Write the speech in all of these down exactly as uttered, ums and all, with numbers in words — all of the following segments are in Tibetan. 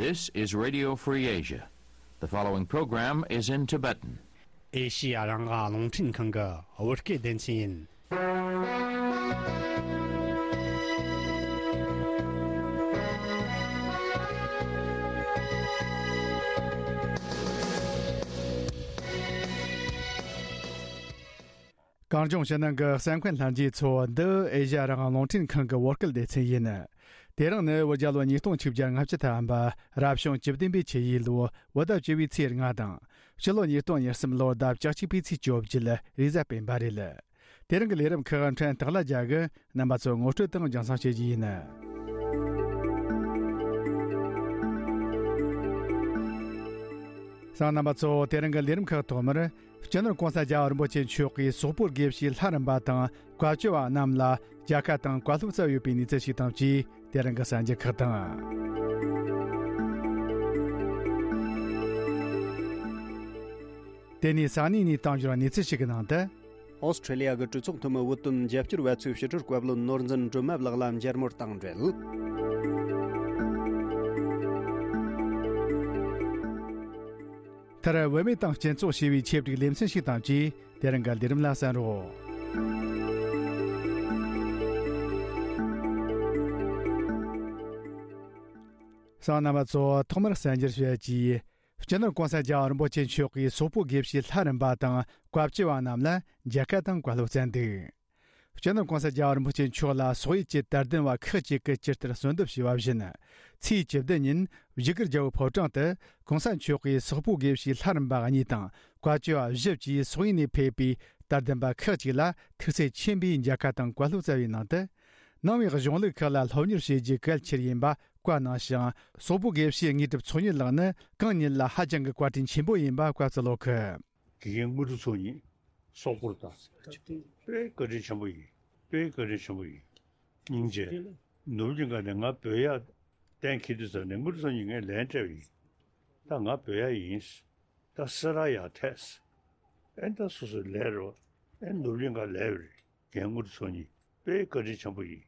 This is Radio Free Asia. The following program is in Tibetan. ཨེ་ཤི་ཡ་རང་དབང་རླུང་འཕྲིན་ཁང་གི་བོད་སྐད་སྡེ་ཚན་ཡིན། གངས་ལྗོངས་ཕྱི་ནང་གི་གསན་མཁན་ལྷན་རྒྱས་ཚོ། འདི་ཨེ་ཤ་ཡ་རང་དབང་རླུང་འཕྲིན་ཁང་གི་བོད་སྐད་སྡེ་ཚན་ཡིན། དེ་རིང་ནི་བོད་རྒྱལ་ལོ་ཉིས་སྟོང་ཆིག་བརྒྱ་ལྔ་བཅུ་ཐམ་པ་རབ་བྱུང་བཅུ་བདུན་པའི་ཆུ་ཡོས་ལོ་བོད་ཟླ་བཅུ་པའི་ཚེས་ལྔ་དང་། ཕྱི་ལོ་ཉིས་སྟོང་ཉེར་གསུམ་ལོ་ཟླ་བཅུ་གཅིག་པའི་ཚེས་བཅོ་བརྒྱད་རེས་གཟའ་སྤེན་པ་རེད། དེ་རིང་གི་ལས་རིམ་ཁག་ཕྲན་སྟག་ལྷ་རྒྱལ་གྱིས་རྣམ་པ་ཚོར་ངོ་སྤྲོད་དང་རྒྱང་སྲིང་བྱེད་རྒྱུ་ཡིན། གསན་མཁན་རྣམ་པ་ཚོ། དེ་རིང་གི་ལས་རིམ་ཁག་ཐོག་མར། སྤྱི་ནོར་གོང་ས་རྒྱལ་བ་རིན་པོ་ཆེ་མཆོག་གིས་སོག་པོའི་དགེ་བཤེས་ལྷ་རམས་པ་དང་བཀའ་བཅོལ་བ་རྣམས་ལ་མཇལ་ཁ་དང་བཀའ་སློབ་སྩལ་ཡོད་པའི་གནས་ཚུལ་ཞིག་དང་བཅས། དེ་རིང་གི་གསར་འགྱུར་ཁག་དང་། དེ་ནས་ས་གནས་ནས་བཏང་འབྱོར་བའི་གནས་ཚུལ་ཞིག་གི་ནང་དུ། ཨོ་སི་ཁྲེ་ལི་ཡ་གི་གྲོས་ཚོགས་འཐུས་མི་བོད་དོན་རྒྱབ་སྐྱོར་བ་ཚོས་ཕྱི་དྲིལ་བཀའ་བློན་ནོར་འཛིན་སྒྲོལ་མ་ལགས་ལ་མཇལ་མོལ་དང་འབྲེལ། མཐར། བུད་མེད་དང་སྤྱི་ཚོགས་ཞེས་པའི་ཆེད་བསྒྲིགས་ལེ་ཚན་ཞིག་དང་བཅས། དེ་རིང་གི་ལས་རིམ་ལ་གསན་རོགས། གསན་མཁན་རྣམ་པ་ཚོ། ཐོག་མར་གསར་འགྱུར་ཞུ་ཡག་གི། སྤྱི་ནོར་གོང་ས་རྒྱལ་བ་རིན་པོ་ཆེ་མཆོག་གིས་སོག་པོའི་དགེ་བཤེས་ལྷ་རམས་པ་དང་བཀའ་བཅོལ་བ་རྣམས་ལ་མཇལ་ཁ་དང་བཀའ་སློབ་སྩལ་འདུག་སྤྱི་ནོར་གོང་ས་རྒྱལ་བ་རིན་པོ་ཆེ་མཆོག་ལ་སོག་ཡུལ་གྱི་དད་ལྡན་པ་ཁག་ཅིག་གིས་ཇི་ལྟར་གསོལ་འདེབས་ཞུས་པ་བཞིན། ཚེས་བཅུ་བདུན་ཉིན་བཞུགས་སྒར་རྒྱལ་པོའི་ཕོ་བྲང་དུ་གོང་ས་མཆོག་གིས་སོག་པོའི་དགེ་བཤེས་ལྷ་རམས་པ་གཉིས་དང་བཀའ་བཅོལ་བ་བཞི་བཅས་སོག་ཡུལ་ནས་ཕེབས་པའི་དད་ལྡན་པ་ཁག་ཅིག་ལ་ཐུགས་སེམས་མཁྱེན་པའི་མཇལ་ཁ་དང་བཀའ་སློབ་སྩལ་བའི་ནང་དུ། ནང་པའི་གཞུང་ལུགས་ཁག་ལ་སློབ་གཉེར་བྱེད་རྒྱུ་གལ་ཆེར་ཡིན་པ་བཀའ་གནང་ཞིང་། སོག་པོའི་དགེ་བཤེས་དངོས་གྲུབ་ཚོགས་གཉིས་ལགས་ནི་གང་ཉིད་ལ་ཧ་ཅང་གི་བཀའ་དྲིན་ཆེན་པོ་ཡིན་པ་བཀའ་སྩལ་ལོ་ཁི། དགེ་རྒན་དངོས་གྲུབ་ཚོགས་གཉིས་སོག་པོར་དང་། དཔེ་བཀའ་དྲིན་ཆེན་པོ་ཡིན། དཔེ་བཀའ་དྲིན་ཆེན་པོ་ཡིན། སྙིང་རྗེ། ནོར་བུ་གླིང་ག་ནས་ང་བོད་ཡར་གཏན་འཁེལ་དུས་ཙམ་ནས་དངོས་གྲུབ་ཚོགས་གཉིས་ངས་ལན་སྤྲད་པ་ཡིན། ད་ང་བོད་ཡར་ཡིན། ད་སེ་ར་ཡར་ཐད། ཨེ་ད་སོ་སོའི་ལས་རོ། ཨེ་ནོར་བུ་གླིང་ག་ལས་རེད། རྒན་དངོས་གྲུབ་ཚོགས་གཉིས་དཔེ་བཀའ་དྲིན་ཆེན་པོ་ཡིན།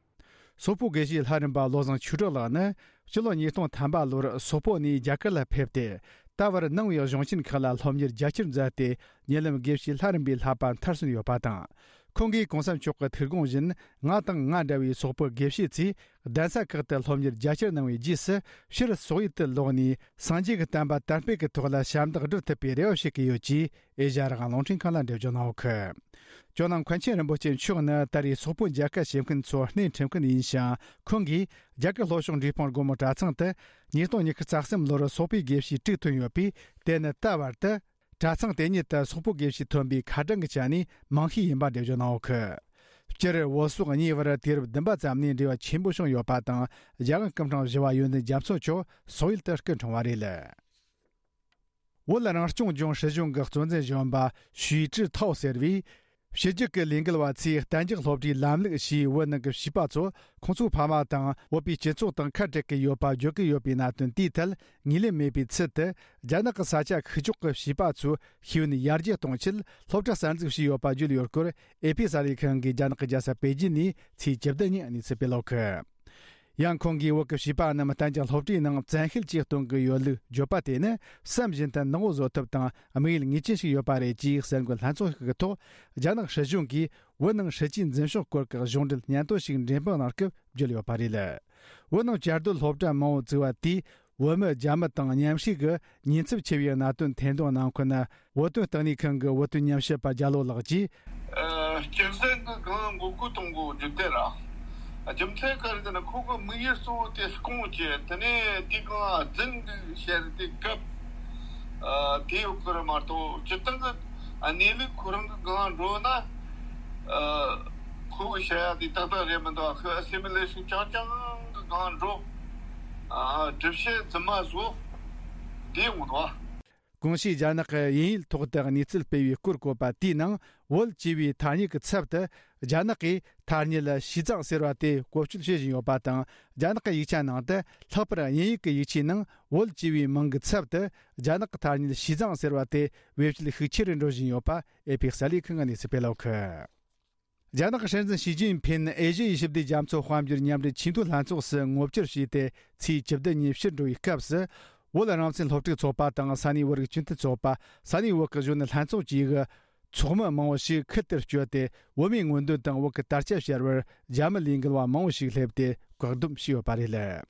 སོག་པོ་དགེ་བཤེས་ལྷ་རམས་པ་བློ་བཟང་ཆོས་གྲགས་ལགས་ནི་སྤྱི་ལོ་ཉིས་སྟོང་ཐམ་པ་ལོར་སོག་པོ་ནས་རྒྱ་གར་ལ་ཕེབས་ཏེ། ད་བར་ནང་པའི་གཞུང་ཆེན་ཁག་ལ་སློབ་གཉེར་རྒྱ་ཆེར་མཛད་དེ། ཉེ་ལམ་དགེ་བཤེས་ལྷ་རམས་པའི་བསླབ་པ་མཐར་སོན་ཡོད་པ་དང་། ཁོང་གིས་གོང་ས་མཆོག་གི་ཐུགས་དགོངས་བཞིན། ང་དང་ང་འདྲ་བའི་སོག་པོ་དགེ་བཤེས་ཚོས་གདན་ས་ཁག་ཏུ་སློབ་གཉེར་རྒྱ་ཆེར་གནང་བའི་རྗེས་སུ། ཕྱིར་སོག་ཡུལ་དུ་ལོག་ནས་སངས་རྒྱས་ཀྱི་བསྟན་པ་དར་སྤེལ་གྱི་ཐོག་ལ་ཞབས་འདེགས་སྒྲུབ་ཐུབ་པའི་རེ་བ་བྱེད་ཀྱི་ཡོད་ཅེས། ཨེ་ཤ་ཡ་རང་དབང་རླུང་འཕྲིན་ཁང་ལ་འགྲེལ་བརྗོད་གནང་ཡོད་ཁུལ། ཇོ་ནང་མཁན་ཆེན་རིན་པོ་ཆེ་མཆོག་ནི་ད་རེས་སོག་པོ་མཇལ་ཁ་བྱེད་མཁན་ཚོར་སྣེ་ཁྲིད་མཁན་ཡིན་ཞིང་། ཁོང་གིས་རྒྱ་གར་ལྷོ་ཕྱོགས་འབྲས་སྤུངས་སྒོ་མོ་གྲྭ་ཚང་དུ་ཉིས་སྟོང་ཉི་ཤུ་རྩ་གསུམ་ལོར་སོག་པོའི་དགེ་བཤེས་དྲུག་ཐོན་ཡོད་པས། དེ་ནི་ད་བར་དུ་གྲྭ་ཚང་དེ་ཉིད་དུ་སོག་པོའི་དགེ་བཤེས་ཐོན་པའི་ཁ་གྲངས་ཀྱི་ཆ་ནས་མང་ཤོས་ཡིན་པ་འགྲེལ་བརྗོད་གནང་ཡོད་ཁུལ། སྤྱིར་བོད་སོག་གཉིས་བར་དུས་རབས་བདུན་པ་ཙམ་ནས་འབྲེལ་བ་ཆེན་པོ་བྱུང་ཡོད་པ་དང་། རྒྱལ་དབང་སྐུ་ཕྲེང་བཞི་པ་ཡོན་ཏན་རྒྱ་མཚོ་མཆོག་སོག་ཡུལ་དུ་སྐུ་འཁྲུངས་པ་རེད། བོད་རང་སྐྱོང་ལྗོངས་སྲིད་གཞུང་གི་གཙོ་འཛིན་གཞོན་པ་ཞུས་ཀྲི་ཐའོ་ཟེར་བས། ཕྱི་རྒྱལ་གྱི་ལས་འགུལ་བ་ཚོས་གཏན་འཇགས་སློབ་གྲྭའི་ལམ་ལུགས་ཞེས་བོད་ནང་གི་བྱིས་པ་ཚོ་ཁོང་ཚོའི་ཕ་མ་དང་བོད་པའི་སྤྱི་ཚོགས་དང་ཁ་བྲལ་གྱི་ཡོད་པ་བརྗོད་ཀྱི་ཡོད་པའི་གནད་དོན་དེའི་ཐད་ངོས་ལེན་མེད་པའི་ཚུལ་དུ། རྒྱ་ནག་གི་ས་ཆ་ཤུགས་ཕྱོགས་ཀྱི་བྱིས་པ་ཚོའི་ཤེས་ཡོན་ཡར་རྒྱས་གཏོང་ཆེད་སློབ་གྲྭ་གསར་འཛུགས་བྱས་ཡོད་པ་བརྗོད་ཡོད་སྐོར། ཨེ་ཕི་གསར་ལས་ཁང་གིས་རྒྱ་ནག་གི་རྒྱལ་ས་པེ་ཅིན་ནས་ཚེས་བཅུ་བདུན་ཉིན་གནས་ཚུལ་སྤེལ་ཡོད་ཁུལ། ཡང་ཁོང་གིས་བོད་ཀྱི་བྱིས་པ་རྣམས་གཏན་འཇགས་སློབ་གྲྭའི་ནང་བཙན་ཤེད་ཀྱིས་གཏོང་གི་ཡོད་ལུགས་བརྗོད་པ་དེ་ནི་བསམ་བཞིན་དུ་ནག་པོ་བཟོ་ཐབས་དང་དམིགས་ཡུལ་ངེས་ཅན་ཞིག་ཡོད་པ་རེད་ཅེས་གསར་འགོད་ལྷན་ཚོགས་ཤིག་གི་ཐོག་རྒྱ་ནག་སྲིད་གཞུང་གིས་བོད་ནང་སྲིད་ཇུས་འཛིན་ཕྱོགས་སྐོར་གྱི་གཞུང་འབྲེལ་སྙན་ཐོ་ཞིག་འགྲེམས་སྤེལ་གནང་སྐབས་བརྗོད་ཡོད་པ་རེད། བོད་ནང་བཅའ་སྡོད་སློབ་གྲྭ་མང་པོ་བཙུགས་པ་དེས། བོད་མི་རྒྱ་མི་དང་མཉམ་ཞུགས་ཀྱི་ཉེན་ཚབས་ཆེ་བའི་གནད་དོན་ཐེར་འདོན་གནང་མཁན་བོད་དོན་ལྟེ་གནས་ཁང་གི་བོད་དོན་ཉམས་ཞིབ་པ་རྒྱ་ལོ་ལགས་ཀྱིས། ཨ། སྤྱིར་བཏང་གི་གང་འགོག་རྒོལ་གཏོང་དགོས་རྒྱུ་དེ་ར། རྒྱུ་མཚན་ག་རེ་ཟེར་ན་ཁོ་གི་དམིགས་ཡུལ་གཙོ་བོ་དེ་སྐོང་བྱས། དེ་ནས་དེ་གང་རྫུན་འདུག་བཤད་དེ་སྐབས། ཨ། དེ་ཡོད་ཀྱི་རེད་མ་གཏོགས་སྤྱིར་བཏང་གི་གནས་ལུགས་ཁོ་རང་གི་སྒང་འགྲོ་ན། ཨ། ཁོ་གི་བཤད་ཡ་དེ་ཏག་ཏག་རེད་མི་འདུག་ཨ་ཁོ་ཨ་སི་མི་ལེ་ཤན་རྐྱང་རྐྱང་གི་སྒང་འགྲོ། ཨ། སྒྲུབ་བྱེད་རྫུན་མ་བཟོ། དེ་ཡོང་འདུག་གོང་ཞུས་རྒྱ་ནག་གི་དབྱིན་ཡིག་ཐོག་ཏུ་གནས་ཚུལ་སྤེལ་བའི་སྐོར་བཀོད་པ་དེའི་ནང་བོད་ཅེས་པའི་ཐ་སྙད་ཀྱི་ཚབ་ཏུ་རྒྱ་ནག་གིས་ཐ་སྙད་ཞི་ཙང་ཟེར་བ་དེ་བཀོལ་སྤྱོད་བྱེད་བཞིན་ཡོད་པ་དང་། རྒྱ་ནག་གི་ཡིག་ཆ་ནང་དུ་ལྷག་པར་དབྱིན་ཡིག་གི་ཡིག་ཆའི་ནང་བོད་ཅེས་པའི་མིང་གི་ཚབ་ཏུ་རྒྱ་ནག་གི་ཐ་སྙད་ཞི་ཙང་ཟེར་བ་དེ་བེད་སྤྱོད་ཤུགས་ཆེ་རུ་འགྲོ་བཞིན་ཡོད་པ་ཨེ་ཕི་གསར་ལས་ཁང་གིས་གནས་ཚུལ་སྤེལ་ཡོད་ཁུལ། རྒྱ་ནག་གི་སྲིད་འཛིན་ཞི་ཅིན་ཕིན་ཨེ་ཤི་ཡའི་ཞི་བདེ་རྒྱ་མཚོ་དཔལ་འབྱོར་མཉམ་འབྲེལ་ཆེས་མཐོའི་ལྷན་ཚོགས་སུ་ངོ་བཅར་བྱས་ཏེ། ཚེས་བཅུ་བདུན་ཉིན་ཕྱིར་འགྲོ་བའི་སྐབས་སུ། བོད་རང་བཙན་སློབ་ཕྲུག་ཚོགས་པ་དང་ས་གནས་བོད་རིགས་སྤྱི་མཐུན་ཚོགས་པ། ས་གནས་བོད་ཀྱི་གཞོན་ནུ་ལྷན་ཚོགས་བཅས་ཀྱི་ཚོགས་མི་མང་བོ་ཞིག་ཁུལ་དེར་བསྐྱོད་དེ། བོད་མིའི་མངོན་འདོད་དང་བོད་ཀྱི་དར་ཆ་ཕྱར་བར་རྒྱ་མི་ལས་འགུལ་བ་མང་བོ་ཞིག་སླེབས་ཏེ། བཀག་སྡོམ་བྱས་ཡོད་པ་རེད།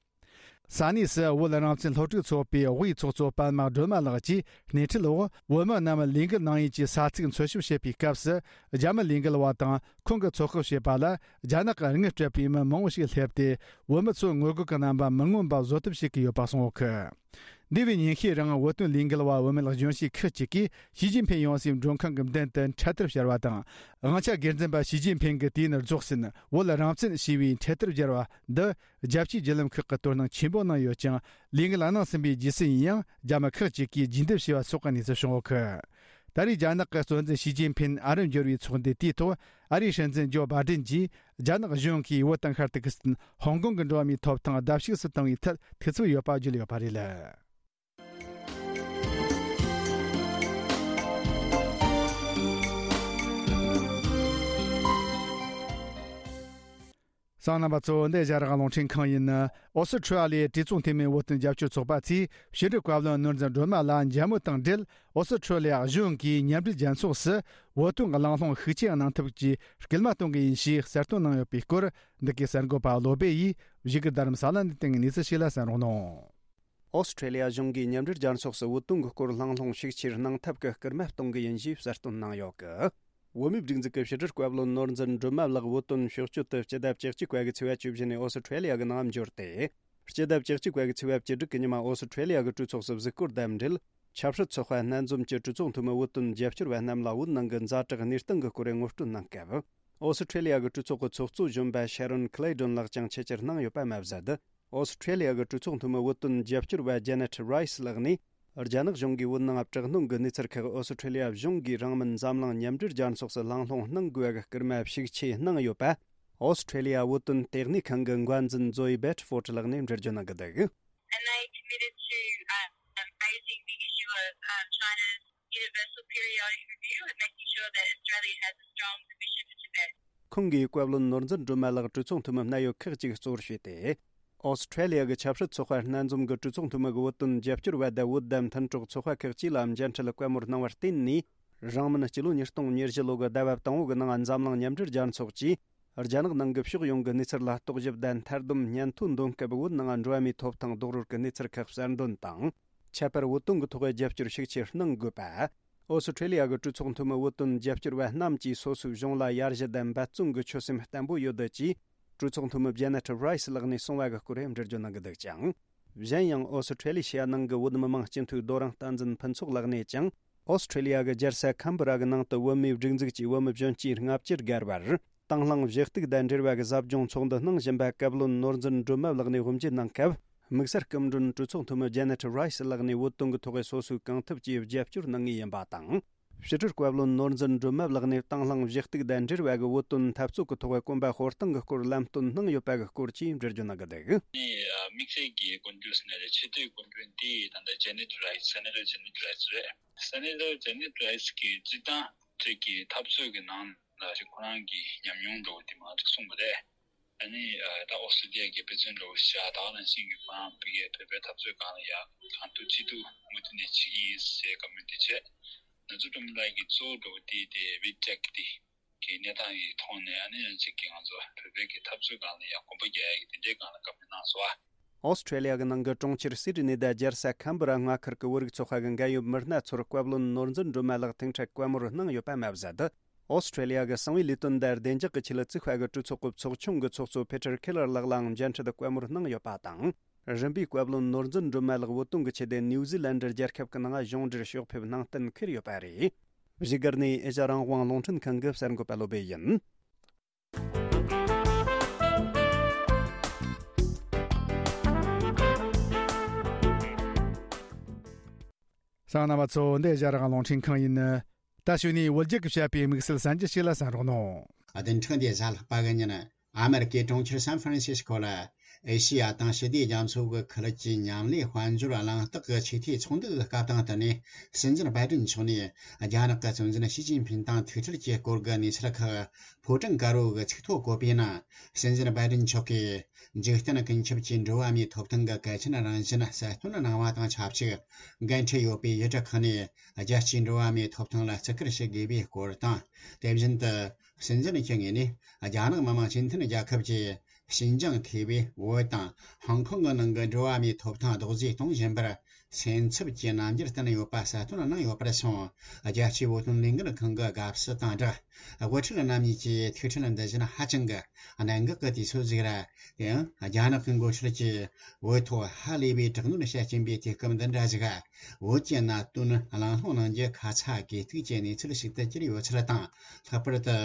ས་གནས་སུ་བོད་རང་བཙན་སློབ་ཕྲུག་ཚོགས་པའི་དབུས་ཚོགས་གཙོ་པདྨ་སྒྲོལ་མ་ལགས་ཀྱིས་སྣེ་ཁྲིད་འོག་བོད་མི་རྣམས་ལས་འགུལ་གནང་ཡུལ་གྱི་ས་ཚིགས་འཚོལ་ཞིབ་བྱེད་པའི་སྐབས་སུ། རྒྱ་མི་ལས་འགུལ་བ་དང་ཁོང་གིས་ཚོད་དཔག་བྱས་པ་ལ། རྒྱ་ནག་གི་དངུལ་སྤྲད་པའི་མི་མང་བོ་ཞིག་སླེབས་ཏེ། བོད་མི་ཚོའི་ངོ་རྒོལ་གྱི་རྣམ་པ་མི་མངོན་པ་བཟོ་ཐབས་བྱེད་ཀྱི་ཡོད་པ་གསུངས་ཡོད་གི། འདས་པའི་ཉིན་ཤས་རིང་བོད་དོན་ལས་འགུལ་བ་བུད་མེད་གཞོན་སྐྱེས་ཁག་ཅིག་གིས་ཞི་ཅིན་ཕིན་ཡོང་སའི་མགྲོན་ཁང་གི་མདུན་དུ་འཕྲེད་དར་ཕྱར་བ་དང་། དབང་ཆ་སྒེར་འཛིན་པ་ཞི་ཅིན་ཕིན་གྱིས་དུས་ཡུན་རྫོགས་ཟིན་བོད་རང་བཙན་ཞེས་པའི་འཕྲེད་དར་སྦྱར་བ་འདི། རྒྱལ་སྤྱིའི་བརྒྱུད་ལམ་ཁག་གིས་དོ་སྣང་ཆེན་པོ་གནང་ཡོད་ཀྱང་། ལས་འགུལ་གནང་ཟིན་པའི་རྗེས་སུ་ཡིན་ཡང་རྒྱ་མི་ཁག་ཅིག་གིས་རྒྱུན་སྡོད་བྱས་པ་སོགས་ཀྱི་གནས་ཚུལ་བྱུང་ཡོད་གི། ད་རེས་རྒྱ་ནག་གི་གཙོ་འཛིན་ཞི་ཅིན་ཕིན་ཨ་རིར་འབྱོར་བའི་ཚོགས་འདུའི་དུས་ཐོག་ཨ་རིའི་སྲིད་འཛིན་ཇོ་བྷ་ཏན་གྱིས་རྒྱ་ནག་གཞུང་གིས་བོད་དང་ཤར་ཏུར་ཀི་སི་ཐན། ཧོང་ཀོང་གི་འགྲོ་བ་མིའི་ཐོབ་ཐང་ལྡབ་གཅིག་སུ་བཏང་བའི་ཐད་ཐུགས་འཚབ་ཡོད་པ་བརྗོད་ཡོད་པ་རེད། གསན་མཁན་རྣམ་པ་ཚོ། འདི་ཨེ་ཤ་ཡ་རང་དབང་རླུང་འཕྲིན་ཁང་ཡིན། ཨོ་སི་ཁྲུ་ལི་ཡའི་གྲོས་ཚོགས་འཐུས་མི་བོད་དོན་རྒྱབ་སྐྱོར་ཚོགས་པ་ཚོས་ཕྱི་དྲིལ་བཀའ་བློན་ནོར་འཛིན་སྒྲོལ་མ་ལ་མཇལ་མོལ་དང་འབྲེལ། ཨོ་སི་ཁྲུ་ལི་ཡ་གཞུང་གིས་མཉམ་འབྲེལ་རྒྱལ་ཚོགས་སུ་བོད་དོན་གྱི་གླེང་སློང་ཤུགས་ཆེ་གནང་ཐབས་ཀྱི་སྐུལ་མ་གཏོང་གི་ཡིན་ཞེས་གསལ་སྟོན་གནང་ཡོད་པའི་སྐོར། འདི་གའི་གསར་འགོད་པ་བློ་བྷེ་ཡིས་བཞུགས་སྒར་རྡ་རམ་ས་ལ་ནས་བཏང་གནས་ཚུལ་ཞིག་ལ་གསན་རོགས་གནང་། ཨོ་སི་ཁྲུ་ལི་ཡ་གཞུང་གིས་མཉམ་འབྲེལ་རྒྱལ་ཚོགས་སུ་བོད་དོན་གྱི་སྐོར་གླེང་སློང་ཤུགས་ཆེར་གནང་ཐབས་ཀྱི་སྐུལ་མ་གཏོང་གི་ཡིན་ཞེས་གསལ་སྟོན་གནང་ཡོད་གི། བོད་མིའི་སྒྲིག་འཛུགས་ཀྱི་ཕྱི་དྲིལ་བཀའ་བློན་ནོར་འཛིན་སྒྲོལ་མ་ལགས་བོད་དོན་ཕྱོགས་སྐྱོད་དུ་སྤྱི་ཟླ་བཅུ་གཅིག་པ་གི་ཚེས་པ་བཅུ་བཞི་ནས་ཨོ་སི་ཁྲུ་ལི་ཡ་གི་ནང་འབྱོར་ཏེ། སྤྱི་ཟླ་བཅུ་གཅིག་པ་གི་ཚེས་པ་བཅུ་དྲུག་གི་ཉི་མ་ཨོ་སི་ཁྲུ་ལི་ཡ་གི་གྲོས་ཚོགས་སུ་གཟིགས་སྐོར་དང་འབྲེལ། ཆབ་སྲིད་ཚོགས་པ་སྣ་འཛོམས་ཀྱི་གྲོས་ཚོགས་འཐུས་མི་བོད་དོན་རྒྱབ་སྐྱོར་བ་རྣམས་ལ་བོད་ནང་གི་ཛ་དྲག་གནས་སྟངས་ཀྱི་སྐོར་ངོ་སྤྲོད་གནང་སྐབས། ཨོ་སི་ཁྲུ་ལི་ཡ་གི་གྲོས་ཚོགས་ཀྱི་ཚོགས་གཙོ་གཞོན་པ་ཤ་རོན་ཁི་ལེ་ཏོན་ལགས་ཀྱང་ཆེད་བཅར་གནང་ཡོད་པ་མ་ཟད། ཨོ་སི་ཁྲུ་ལི་ཡ་གི་གྲོས་ཚོགས་འཐུས་མི་བོད་དོན་རྒྱབ་སྐྱོར་བ་ཇེ་ནེ་ཊི་རའི་སི་ལགས་ནས། རྒྱ་ནག་གཞུང་གིས་བོད་ནང་དྲག་གནོན་གྱི་གནས་ཚུལ་ཁག་ཨོ་སི་ཁྲུ་ལི་ཡ་གཞུང་གིས་རིང་མིན་འཛམ་གླིང་མཉམ་འབྲེལ་རྒྱལ་ཚོགས་སུ་གླེང་སློང་གནང་དགོས་པའི་སྐུལ་མ་ཤུགས་ཆེ་གནང་ཡོད་པ། ཨོ་སི་ཁྲུ་ལི་ཡ་བོད་དོན་ལྟེ་གནས་ཁང་གི་འགན་འཛིན་ཛོ་ཡི་བེ་ཏི་ཧྥོར་ལགས་ནས་འགྲེལ་བརྗོད་གནང་གི་འདུག། And they committed to, um, raising the issue of, um, China's universal periodic review and making sure that Australia has a strong position for Tibet. ཁོང་གིས་བཀའ་བློན་ནོར་འཛིན་སྒྲོལ་མ་ལགས་གྲོས་ཚོགས་འཐུས་མི་སྣ་ཡོད་ཁག་ཅིག་གཙོ་བོར་བྱས་ཏེ། ཨོ་སི་ཁྲུ་ལི་ཡ་གི་ཆབ་སྲིད་ཚོགས་པ་སྣ་འཛོམས་ཀྱི་གྲོས་ཚོགས་འཐུས་མི་གི་བོད་དོན་རྒྱབ་སྐྱོར་བ་དང་བོད་དང་མཐུན་གྲོགས་ཚོགས་པ་ཁག་ཅིག་ལ་མཇལ་འཕྲད་བཀའ་མོལ་གནང་བར་བརྟེན་ནས། རིང་མིན་སྤྱི་ལོ་ཉིས་སྟོང་ཉེར་བཞི་ལོ་གི་ཟླ་བ་དང་པོ་གི་ནང་འཛམ་གླིང་མཉམ་འབྲེལ་རྒྱལ་ཚོགས་ཀྱིས། རྒྱ་ནག་ནང་གི་ཕྱོགས་ཡོངས་ཀྱི་གནས་ཚུལ་ལ་རྟོག་ཞིབ་དང་མཐའ་སྡོམ་སྙན་ཐོ་འདོན་སྐབས། བོད་ནང་འགྲོ་བ་མིའི་ཐོབ་ཐང་རྡོག་རོལ་གྱི་གནས་ཚུལ་ཁག་གསར་འདོན་དང་། ཁྱད་པར་བོད་དོན་གྱི་ཐོག་རྒྱབ་སྐྱོར་ཤུགས་ཆེར་གནང་དགོས་པ། ཨོ་སི་ཁྲུ་ལི་ཡ་གི་གྲོས་ཚོགས་འཐུས་མི་བོད་དོན་རྒྱབ་སྐྱོར་བ་རྣམས་ཀྱིས་སོ་སོའི་གཞུང་ལ་ཡར་ཞུ་དང་འབད་བརྩོན་གྱི་ཆོད་སེམས་བརྟན་པོ་ཡོད་ཅེས། གྲོས་ཚོགས་འཐུས་མི་ཇེ་ནེ་ཊི་རའི་སི་ལགས་ནས་གསུངས་པ་གི་སྐོར་འགྲེལ་བརྗོད་གནང་གི་འདུག་ཅིང་། གཞན་ཡང་ཨོ་སི་ཁྲུ་ལི་ཤི་ཡ་ནང་གི་བོད་མི་མང་སྤྱི་འཐུས་རྡོ་རིང་བསྟན་འཛིན་ཕུན་ཚོགས་ལགས་ནས་ཀྱང་། ཨོ་སི་ཁྲུ་ལི་ཡ་གི་རྒྱལ་ས་ཁམ་བུ་ར་གི་ནང་དུ་བོད་མིའི་སྒྲིག་འཛུགས་ཀྱི་བོད་མི་གཞོན་སྐྱེས་ལྔ་བཅུ་བརྒལ་བར། དང་བླངས་གཞི་གཏུག་དང་འབྲེལ་བ་གི་ཟབ་སྦྱོང་ཚོགས་འདུ་གནང་བཞིན་པ་བཀའ་བློན་ནོར་འཛིན་སྒྲོལ་མ་ལགས་ནས་དབུ་འབྱེད་གནང་སྐབས། དམིགས་བསལ་སྐུ་མགྲོན་གྲོས་ཚོགས་འཐུས་མི་ཇེ་ནེ་ཊི་རའི་སི་ལགས་ནས་བོད་དོན་གྱི་ཐོག་སོ་སོའི་གང་ཐུབ་ཀྱིས་རྒྱབ་སྐྱོར་གནང་ངེས་ཡིན་པ་དང་། ཕྱི་དྲིལ་བཀའ་བློན་ནོར་འཛིན་སྒྲོལ་མ་ལགས་ནས་དང་བླངས་གཞི་གཏུག་དང་འབྲེལ་བ་གི་བོད་དོན་འཐབ་རྩོད་ཀྱི་ཐོག་གོམ་པ་སྤོ་སྟངས་ཀྱི་སྐོར་ལམ་སྟོན་གནང་ཡོད་པ་གི་སྐོར་བཅས་འགྲེལ་བརྗོད་གནང་གི་འདུག། ནི་དམིགས་བསལ་གྱི་སྐུ་མགྲོན་ཟེར་ན་རེད། ཆེས་མཐོའི་སྐུ་མགྲོན་དེ་ད་ལྟ་ཇེ་ནེ་ཊི་རའི་སི། སེ་ནེ་ཊར་ཇེ་ནེ་ཊི་རའི་སི་རེད། སེ་ནེ་ཊར་ཇེ་ནེ་ཊི་རའི་སི་གིས་སྤྱིར་བཏང་ཅིག་གི་འཐབ་རྩོད་ཀྱི་ནང་ལ་ཅིག་ཁོ་རང་གི་ཉམས་མྱོང་འདྲ་བོ་དེ་མང་ཙམ་གསུངས་པ་རེད། ཨ་ནི་ད་ཨོ་སི་ཀྲི་ལི་ཡ་གི་དཔེ་མཚོན་འདྲ་བོ་ཞིག་བཞག་ད་ག་ནང་བཞིན་གྱི་ཁོ་རང་བོད་པའི་འཐབ་རྩོད་སྒང་ལ་ཡ་གང་ཐུབ་ཅི་ཐུབ་མུ་མཐུད་ནས་བྱེད་ཀྱི་ཡིན་ཟེར་བཀའ་མོལ་དེ་བྱས། ནོར་འཛིན་སྒྲོལ་མ་ལགས་ཀྱིས་གཙོ་བོ་འདྲ་བོ་དེ་དེ་བི་ཊེག་དེ་གི་གནས་སྟངས་ཀྱི་ཐོག་ནས་ཨ་ནི་ཡང་གཅིག་གི་ང་ཚོ་བོད་པའི་གི་འཐབ་རྩོད་སྒང་ལ་ཡ་གོམ་པ་རྒྱག་ཡ་གི་དེ་འདྲའི་སྒང་ལ་བཀའ་མོལ་གནང་སོང་ཨ། ཨོ་སི་ཁྲུ་ལི་ཡ་གི་ནང་གི་གྲོང་ཁྱེར་སིད་ནི་དང་རྒྱལ་ས་ཁམ་བུ་ར་མངའ་ཁུལ་གྱི་བོད་རིགས་ཚོགས་པ་གི་འགན་ཡོད་མི་སྣ་ཚོར་བཀའ་བློན་ནོར་འཛིན་སྒྲོལ་མ་ལགས་ཐུག་འཕྲད་བཀའ་མོལ་གནང་ཡོད་པ་མ་ཟད། ཨོ་སི་ཁྲུ་ལི་ཡ་གི་གསང་བའི་ལས་དོན་དང་བདེ་འཇགས་ཀྱི་ཆེད་ལ་བཙུགས་པ་གི་གྲོས་ཚོགས་ཀྱི་ཚོགས་ཆུང་གི་ཚོགས་གཙོ་ཕེ་ཏྲ་ཁེ་ལར་ལགས་ལའང་མཇལ་འཕྲད་བཀའ་མོལ་གནང་ཡོད་པ་དང་། རིམ་པས་བཀའ་བློན་ནོར་འཛིན་སྒྲོལ་མ་ལགས་བོད་དོན་གྱི་ཆེད་དུ་ནིའུ་ཛི་ལན་ཌི་རྒྱལ་ཁབ་ཀྱི་ནང་གཞུང་འབྲེལ་ཕྱོགས་ཕེབས་གནང་གཏན་འཁེལ་ཡོད་པ་རེད། བཞུགས་སྒར་ནས་ཨེ་ཤ་ཡ་རང་དབང་རླུང་འཕྲིན་ཁང་གི་གསར་འགོད་པ་བློ་བྷེ་ཡིན། གསན་མཁན་རྣམ་པ་ཚོ། འདི་ཨེ་ཤ་ཡ་རང་དབང་རླུང་འཕྲིན་ཁང་ཡིན། ད་གཞུག་ནས་བོད་རྒྱལ་གྱིས་བཤད་པའི་དམིགས་བསལ་གསར་འགྱུར་ཞིག་ལ་གསན་རོགས་གནང་། བདུན་ཕྲག་འདིའི་གཟའ་ལྷག་པ་གི་ཉིན། ཨ་མེ་རི་ཀའི་གྲོང་ཁྱེར་སན་ཧྥ་རན་སིས་ཀོ་ལ། ཨེ་ཤེ་ཡ་དང་ཞི་བདེ་རྒྱ་མཚོ་གི་ཁུལ་གྱི་མཉམ་ལས་དཔལ་འབྱོར་གླེང་སྟེགས་ཀྱི་ཆེས་མཐོའི་ཚོགས་འདུ་གི་སྐབས་དང་བསྟུན་ནས། སྲིད་འཛིན་བྷའི་ཏིན་མཆོག་ནས་རྒྱ་ནག་གི་གཙོ་འཛིན་ཞི་ཅིན་ཕིན་དང་ཐུག་འཕྲད་ཀྱི་སྐོར་གྱི་གནས་ཚུལ་ཁག་ཕོ་བྲང་དཀར་པོ་གི་ཚིག་ཐོ་བཀོད་པའི་ནང་། སྲིད་འཛིན་བྷའི་ཏིན་མཆོག་གིས་འཇིག་རྟེན་ཀུན་ཁྱབ་ཀྱི་འགྲོ་བ་མིའི་ཐོབ་ཐང་གི་གལ་ཆེན་རང་བཞིན་གསལ་སྟོན་གནང་བ་དང་ཆབས་ཅིག་འགན་འཁྲི་ཡོད་པའི་ཡུལ་གྲུ་ཁག་ནས་རྒྱལ་སྤྱིའི་འགྲོ་བ་མིའི་ཐོབ་ཐང་ལ་བརྩི་བཀུར་ཞུ་དགོས་པའི་སྐོར་དང་། དེ་བཞིན་དུ། སྲིད་འཛིན་གྱི་ངོས་ནས་རྒྱ་ནག་མི་དམངས་སྤྱི་མཐུན་རྒྱལ་ཁབ་ཀྱི་ཞིན་ཅང་ཐེ་བའི་བོད་དང་ཧོང་ཀོང་གི་ནང་གི་འགྲོ་བ་མིའི་ཐོབ་ཐང་རྡོག་རྫིས་གཏོང་བཞིན་པར་སེམས་འཚབ་ཀྱི་རྣམ་འགྱུར་བསྟན་ཡོད་པ་གསལ་སྟོན་གནང་ཡོད་པར་སོང་། རྒྱལ་སྤྱིའི་བོད་དོན་ལས་འགུལ་ཁང་གི་དགའ་བསུ་དང་སྦྲགས། དབུ་ཁྲིད་རྣམ་གཉིས་ཀྱི་ཐུག་འཕྲད་འདི་བཞིན་ཧ་ཅང་གི་གནད་འགག་གི་དུས་ཚོད་ཟིག་རེད། དེ་ཡང་རྒྱ་ནག་གི་འགོ་ཁྲིད་ཀྱིས་བོད་ཐོག་ཧ་ལས་པའི་དྲག་གནོན་བྱེད་ཀྱིན་པའི་དུས་སྐབས་འདི་འདྲ་ཞིག་བོད་ཀྱི་གནད་དོན་གླེང་སློང་གནང་རྒྱུ་ཁ་ཚ་དགོས་གཏུགས་ཀྱི་གནས་ཚུལ་ཞིག་ཏུ་གྱུར་ཡོད་ཚུལ་དང་། ལྷག་པར་དུ།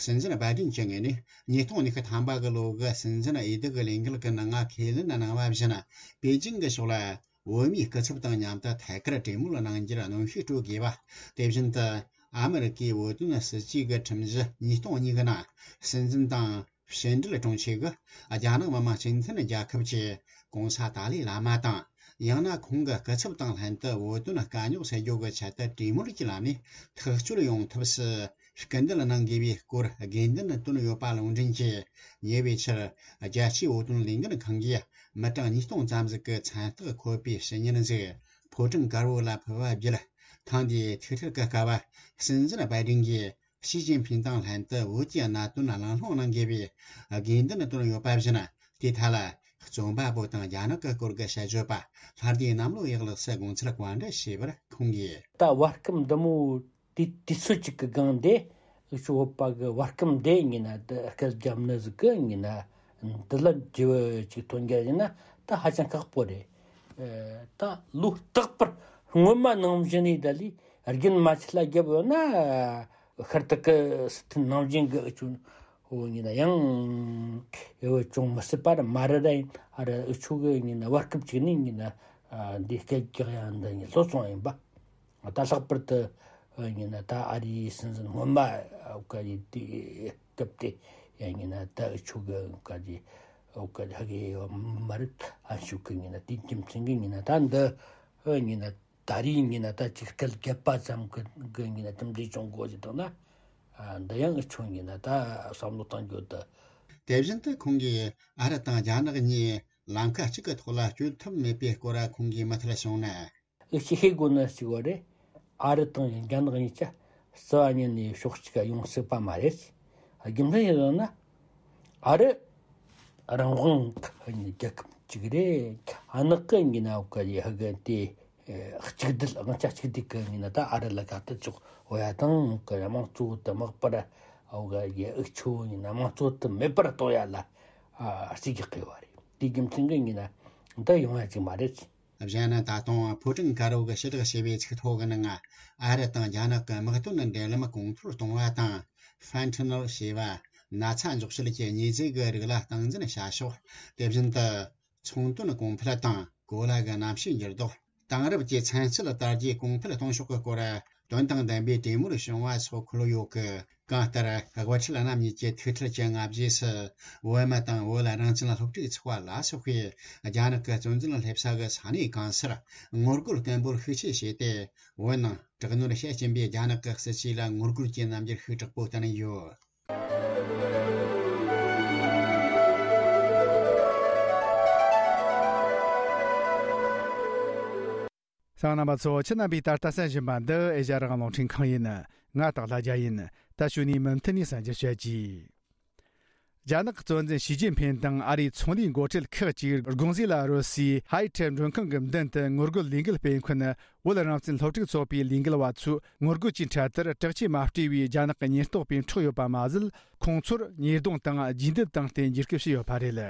སྲིད་འཛིན་བྷའི་ཏིན་གྱི་ངོས་ནས་ཉིས་སྟོང་ཉི་ཤུ་ཐམ་པ་གི་ལོ་གི་སྲིད་འཛིན་འོས་བསྡུ་གི་ལས་འགུལ་གྱི་ནང་ང་ཁས་ལེན་གནང་བ་བཞིན། པེ་ཅིང་གི་ཕྱོགས་ལ་བོད་མིའི་སྐུ་ཚབ་དང་མཉམ་དུ་ཐད་ཀར་གྲོས་མོལ་གནང་རྒྱུར་གནོན་ཤུགས་སྤྲོད་དགོས་པ། དེ་བཞིན་དུ། ཨ་མི་རི་ཀའི་བོད་དོན་སྲིད་ཇུས་ཀྱི་ཁྲིམས་གཞི་ཉིས་སྟོང་གཉིས་གི་ནང་། སྲིད་འཛིན་དང་ཕྱི་འབྲེལ་དྲུང་ཆེ་གིས་རྒྱ་ནག་མི་དམངས་སྤྱི་མཐུན་རྒྱལ་ཁབ་ཀྱི་གོང་ས་ཏཱ་ལའི་བླ་མ་དང་། ཡང་ན་ཁོང་གི་སྐུ་ཚབ་དང་ལྷན་དུ་བོད་དོན་དཀའ་རྙོག་སེལ་རྒྱུ་གི་ཆེད་དུ་གྲོས་མོལ་གྱི་ལམ་ནས་ཐག་གཅོད་ཡོང་ཐབས་སུ་སྐུལ་འདེད་གནང་དགོས་པའི་སྐོར་དགོས་འདུན་བཏོན་ཡོད་པ་ལུང་འདྲེན་གྱིས། ཉེ་བའི་ཆར་རྒྱལ་སྤྱིའི་བོད་དོན་ལས་འགུལ་ཁང་གིས་མི་གྲངས་ཉིས་སྟོང་ཙམ་ཟིག་གི་མཚན་རྟགས་འཁོད་པའི་ཕྱི་ཉིན་ཟིག་ཕོ་བྲང་དཀར་པོ་ལ་ཕུལ་བ་བརྒྱུད། ཐེངས་འདིའི་ཐུག་འཕྲད་ཀྱི་སྐབས། སྲིད་འཛིན་བྷའི་ཏིན་གྱིས་ཞི་ཅིན་ཕིན་དང་ལྷན་དུ་བོད་ཀྱི་གནད་དོན་གླེང་སློང་གནང་དགོས་པའི་དགོས་འདུན་བཏོན་ཡོད་པ་བཞིན། དེའི་ཐད་ལ། རྩོམ་པ་པོ་དང་རྒྱ་ནག་གི་སྐོར་གྱི་དཔྱད་བརྗོད་པ་ལྷ་སྡེ་གནམ་ལོ་ཡག་ལགས་སུ་དགོངས་ཚུལ་བཀའ་འདྲི་ཞུས་པར་ཁོང་གིས། ད་བར་སྐབས་འདི་མོ་དུས་དུས་ཚོད་ཅིག་གི་སྒང་དེ། འུ་ཆོ་བོད་པ་གི་བར་སྐབས་འདི་ཡིན་ན་དེ་སྐད་རྒྱབ་ནི་ཟིག་གི་ཡིན་ན། འདི་ལ་བརྗེ་བ་ཅིག་ཐོན་རྒྱུ་ཡིན་ན་ད་ཧ་ཅང་ཁག་པོ་རེད། ཨ། ད་ལོ་རྟག་པར་སྔོན་མ་ནང་བཞིན་ནས་ད་ལས་རྒྱུན་མ་ཆད་ལ་རྒྱབ་ཡོད་ན། ཤར་ཏུ་ཀི་སི་ཐན་ནང་བཞིན་གི་འུ་ཆོ་བོ་ཡིན་ན་ཡང་འུ་ཅུང་མི་སྲིད་པ་ར་མ་རེད། ད་ཡིན་ཨ་ར་འུ་ཆོ་གི་ཡིན་ན་བར་སྐབས་ཅིག་ནས་ཡིན་ན། ཨ། འདི་སྐད་རྒྱག་ཡ་འདི་ཡིན་ལྷོད་སོང་ཡིན་པ། ད་ལྷག་པར་དུ་ཡིན་ན་ད་ཨ་རིའི་སྲིད་འཛིན་སྔོན་མ་འོ་ག་ཡི་དུས་སྐབས་དེ་ཡང་ཡིན་ན་ད་འུ་ཆོ་གི་འོ་ག་ཡི་འོ་ག་ཧ་གི་མ་རེད། ཨ་ཤུ་གི་ཡིན་ན་དེ་རྒྱུ་མཚན་གི་ཡིན་ན་ད་འདི་ཡིན་ན། ད་རེས་ཡིན་ན་ད་ཅིག་སྐད་བརྒྱབ་པ་ཙམ་གི་གི་ཡིན་ན་གྲུབ་འབྲས་བྱུང་དགོས་ཀྱི་འདུག་ན། ཨ། འདི་ཡང་འུ་ཆོ་ཡིན་ན་ད་བསམ་བློ་གཏོང་རྒྱུ་འདུག་དེ་བཞིན་དུ་ཁོང་གིས་ཨ་རི་དང་རྒྱ་ནག་གཉིས་ལམ་ཁ་གཅིག་གི་ཐོག་ལ་སྐྱོད་ཐུབ་མེད་པའི་སྐོར་ཁོང་གིས་མུ་མཐུད་གསུངས་ན། འུ་ཆོས་ཤེས་དགོས་ནི་གཅིག་པོ་རེད། ཨ་རི་དང་རྒྱ་ནག་གཉིས་ཀ་རྩ་བ་ཉིད་ནས་ཕྱོགས་གཅིག་ག་ཡོང་སྲིད་པ་མ་རེད། རྒྱུ་མཚན་ཡིན་ཟེར་ན། ཨ་རི་རང་དབང་གི་རྒྱལ་ཁབ་ཅིག་རེད། ཨ་ནག་གི་ཡིན་ན་འོ་ག་ཡི་ཧ་གི་དེ་གཅིག་སྡུད། དབང་ཆ་གཅིག་སྡུད་གི་ཡིན་ན་ད་ཨ་རི་ལ་དགའ་ཐུབ་ཆོག་འོ་ཡ་དང་གི་དམངས་གཙོ་དུ་མག་པར་འོ་ག་ཡི་འུ་ཆོ་ཡིན་ན་དམངས་གཙོ་དུ་མེད་པར་གཏོང་ཡ་ལ་རྩིས་རྒྱག་གི་ཡོད་རེད། དེ་རྒྱུ་མཚན་གི་ཡིན་ན་འདི་ཡོང་ཡ་ཅིག་མ་རེད། གཞན་ན་ད་དུང་ཕོ་བྲང་དཀར་པོ་གི་ཕྱི་བསྒྲགས་བྱས་པའི་ཚིག་ཐོ་གི་ནང་ང་། ཨ་རི་དང་རྒྱ་ནག་གི་དམག་དོན་འབྲེལ་ལམ་གོང་མཐོར་གཏོང་བ་དང་། ཧྥན་ཐི་ནོལ་ཞེས་པ་ན་ཚ་འཇོག་བྱེད་ཀྱི་མྱི་ཟེར་གྱི་རིགས་ལ་སྟངས་འཛིན་བྱ་ཕྱོགས། དེ་བཞིན་དུ་ཚོང་དོན་གོང་འཕེལ་དང་གོ་ལ་གི་གནམ་གཤིས་འགྱུར་ལྡོག། དེང་རབས་ཀྱི་ཚན་རྩལ་དར་རྒྱས་གོང་འཕེལ་གཏོང་ཕྱོགས་ཀྱི་སྐོར་དོན་དང་ལྡན་པའི་གྲོས་མོལ་བྱུང་བ་སོགས་འཁོད་ཡོད་ཀི། གང་ལྟར་དབུ་ཁྲིད་རྣམ་གཉིས་ཀྱི་ཐུག་འཕྲད་ཀྱི་སྔ་རྗེས་སུ། བོད་མི་དང་བོད་རང་བཙན་སློབ་ཕྲུག་ཚོགས་པ་ལ་སོགས་པས་རྒྱ་ནག་གི་གཙོ་འཛིན་སླེབས་ས་གི་ས་གནས་གང་སར་ངོ་རྒོལ་སྐད་འབོད་ཤུགས་ཆེ་བྱས་ཏེ། བོད་ནང་དྲག་གནོན་བྱེད་བཞིན་པའི་རྒྱ་ནག་གི་སྲིད་བྱུས་ལ་ངོ་རྒོལ་གྱི་རྣམ་འགྱུར་ཤུགས་དྲག་པོ་བསྟན་ཡོད། གསན་མཁན་རྣམ་པ་ཚོ། ཁྱེད་རྣམ་པས་ད་ལྟ་གསན་བཞིན་པ་འདི་ཨེ་ཤ་ཡ་རང་དབང་རླུང་འཕྲིན་ཁང་ཡིན། ང་སྟག་ལྷ་རྒྱལ་ཡིན། ད་གཞུག་ནས་མུ་མཐུད་ནས་གསན་རྒྱུ་བྱེད་ཀྱི། རྒྱ་ནག་གི་གཙོ་འཛིན་ཞི་ཅིན་ཕིན་དང་ཨ་རིའི་ཚོང་ལས་འགོ་ཁྲིད་ཁག་ཅིག་དགོང་ཟས་ལ་རོལ་སའི་ཧའེ་ཐེ་མགྲོན་ཁང་གི་མདུན་དུ་ངོ་རྒོལ་ལས་འགུལ་སྤེལ་མཁན་བོད་རང་བཙན་སློབ་ཕྲུག་ཚོགས་པའི་ལས་འགུལ་བ་ཚོའི་ངོ་རྒོལ་གྱི་འཕྲལ་དུ་དྲག་ཆས་མ་སྤྲས་པའི་རྒྱ་ནག་གི་ཉེན་རྟོག་པས་འཕྲོག་ཡོད་པ་མ་ཟད། ཁོང་ཚོར་ཉེས་རྡུང་དང་རྗེས་འདེད་བཏང་སྟེ་འཇིགས་སྐུལ་བྱས་ཡོད་པ་རེད།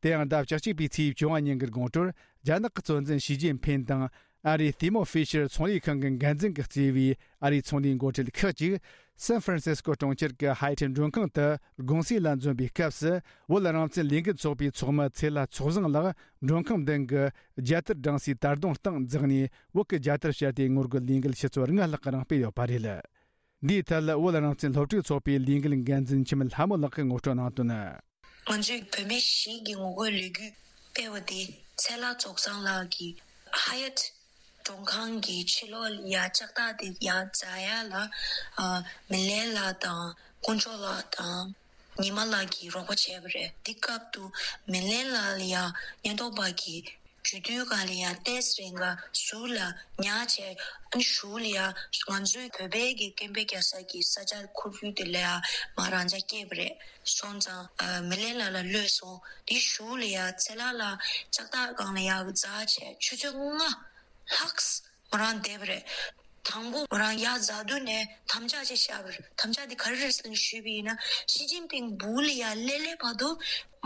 དེ་ཡང་ཟླ་བཅུ་གཅིག་པའི་ཚེས་བཅོ་ལྔ་ཉིན་གྱི་དགོང་དྲོར་རྒྱ་ནག་གི་གཙོ་འཛིན་ཞི་ཅིན་ཕིན་དང་ཨ་རིའི་Thermo Fisher ཚོང་ལས་ཁང་གི་འགན་འཛིན་གྱིས་གཙོས་པའི་ཨ་རིའི་ཚོང་ལས་འགོ་ཁྲིད་ཁག་ཅིག་སན་ཧྥ་རན་སིས་ཀོ་གྲོང་ཁྱེར་གྱི་ཧའེ་ཐེ་མགྲོན་ཁང་དུ་དགོང་ཟས་ལ་འཛོམས་པའི་སྐབས་སུ། བོད་རང་བཙན་ལས་འགུལ་ཚོགས་པའི་ཚོགས་མི་ཚེ་ལྷ་ཚོགས་བཟང་ལགས་མགྲོན་ཁང་མདུན་གྱི་རྒྱལ་དར་བསྒྲེངས་སའི་དར་གདུང་སྟེང་འཛེགས་ནས་བོད་ཀྱི་རྒྱལ་དར་ཕྱར་ཏེ་ངོ་རྒོལ་ལས་འགུལ་ཆུ་ཚོད་ལྔ་ལྷག་གི་རིང་སྤེལ་ཡོད་པ་རེད། འདིའི་ཐད་བོད་རང་བཙན་སློབ་ཕྲུག་ཚོགས་པའི་ལས་འགུལ་འགན་འཛིན་འཆི་མེད་ལྷ་མོ་ལགས་ཀྱིས་ངོ་སྤྲོད་གནང་དོན། ང་ཚོའི་བུད་མེད་བཞི་གི་ངོ་རྒོལ་ལས་འགུལ་སྤེལ་བ་དེ་ཚེ་ལྷ་རྫོགས་བཟང་ལགས་ཀྱིས་ཧ་ཡ་ཊི་མགྲོན་ཁང་གི་ཕྱི་ལོགས་ལ་ཡ་ལྕགས་ཐག་དེ་ཡ་འཛེག་ཡ་ལ། ཨ། མི་ལན་ལགས་དང་དཀོན་མཆོག་ལགས་དང་ཉི་མ་ལགས་ཀྱིས་རོགས་པ་བྱས་པ་རེད། འདི་སྐབས་དུ་མི་ལན་ལགས་ལ་ཡ་ཉེན་རྟོག་པ་གིས་རྒྱུ་དུས་གང་ལ་ཡ་ཏེས་རེ་འགའ་ཟུར་ལ་ཉར་བྱས། ཨ་ནི་གཞུག་ལ་ཡ་ང་ཚོའི་བོད་པའི་གི་སྐད་འབོད་རྒྱག་ས་གི་ས་ཆ་ཁོར་ཡུག་དེ་ལ་ཡ་མ་རང་འཇགས་སྐྱེས་པ་རེད། སོང་ཙང་ཨ་མི་ལན་ལགས་ལ་གློད་སོང་། དེ་གཞུག་ལ་ཡ་ཚེ་ལྷ་ལགས་ལྕགས་ཐག་སྒང་ལ་ཡ་འཛེག་བྱས་ཆུ་ཚོད་ལྔ་ལྷག་མོ་རང་བསྡད་པ་རེད། དང་པོ་མོ་རང་ཡ་འཛེག་དུས་ནས་དམ་བཅའ་ཅིག་བཞག་པ་རེད། དམ་བཅའ་དེ་ག་རེ་རེད་ཟེར་ན་ཞུས་པ་ཡིན་ན་ཞི་ཅིན་ཕིང་སྦུག་ལ་ཡ་སླེབས་སླེབས་བར་དུ་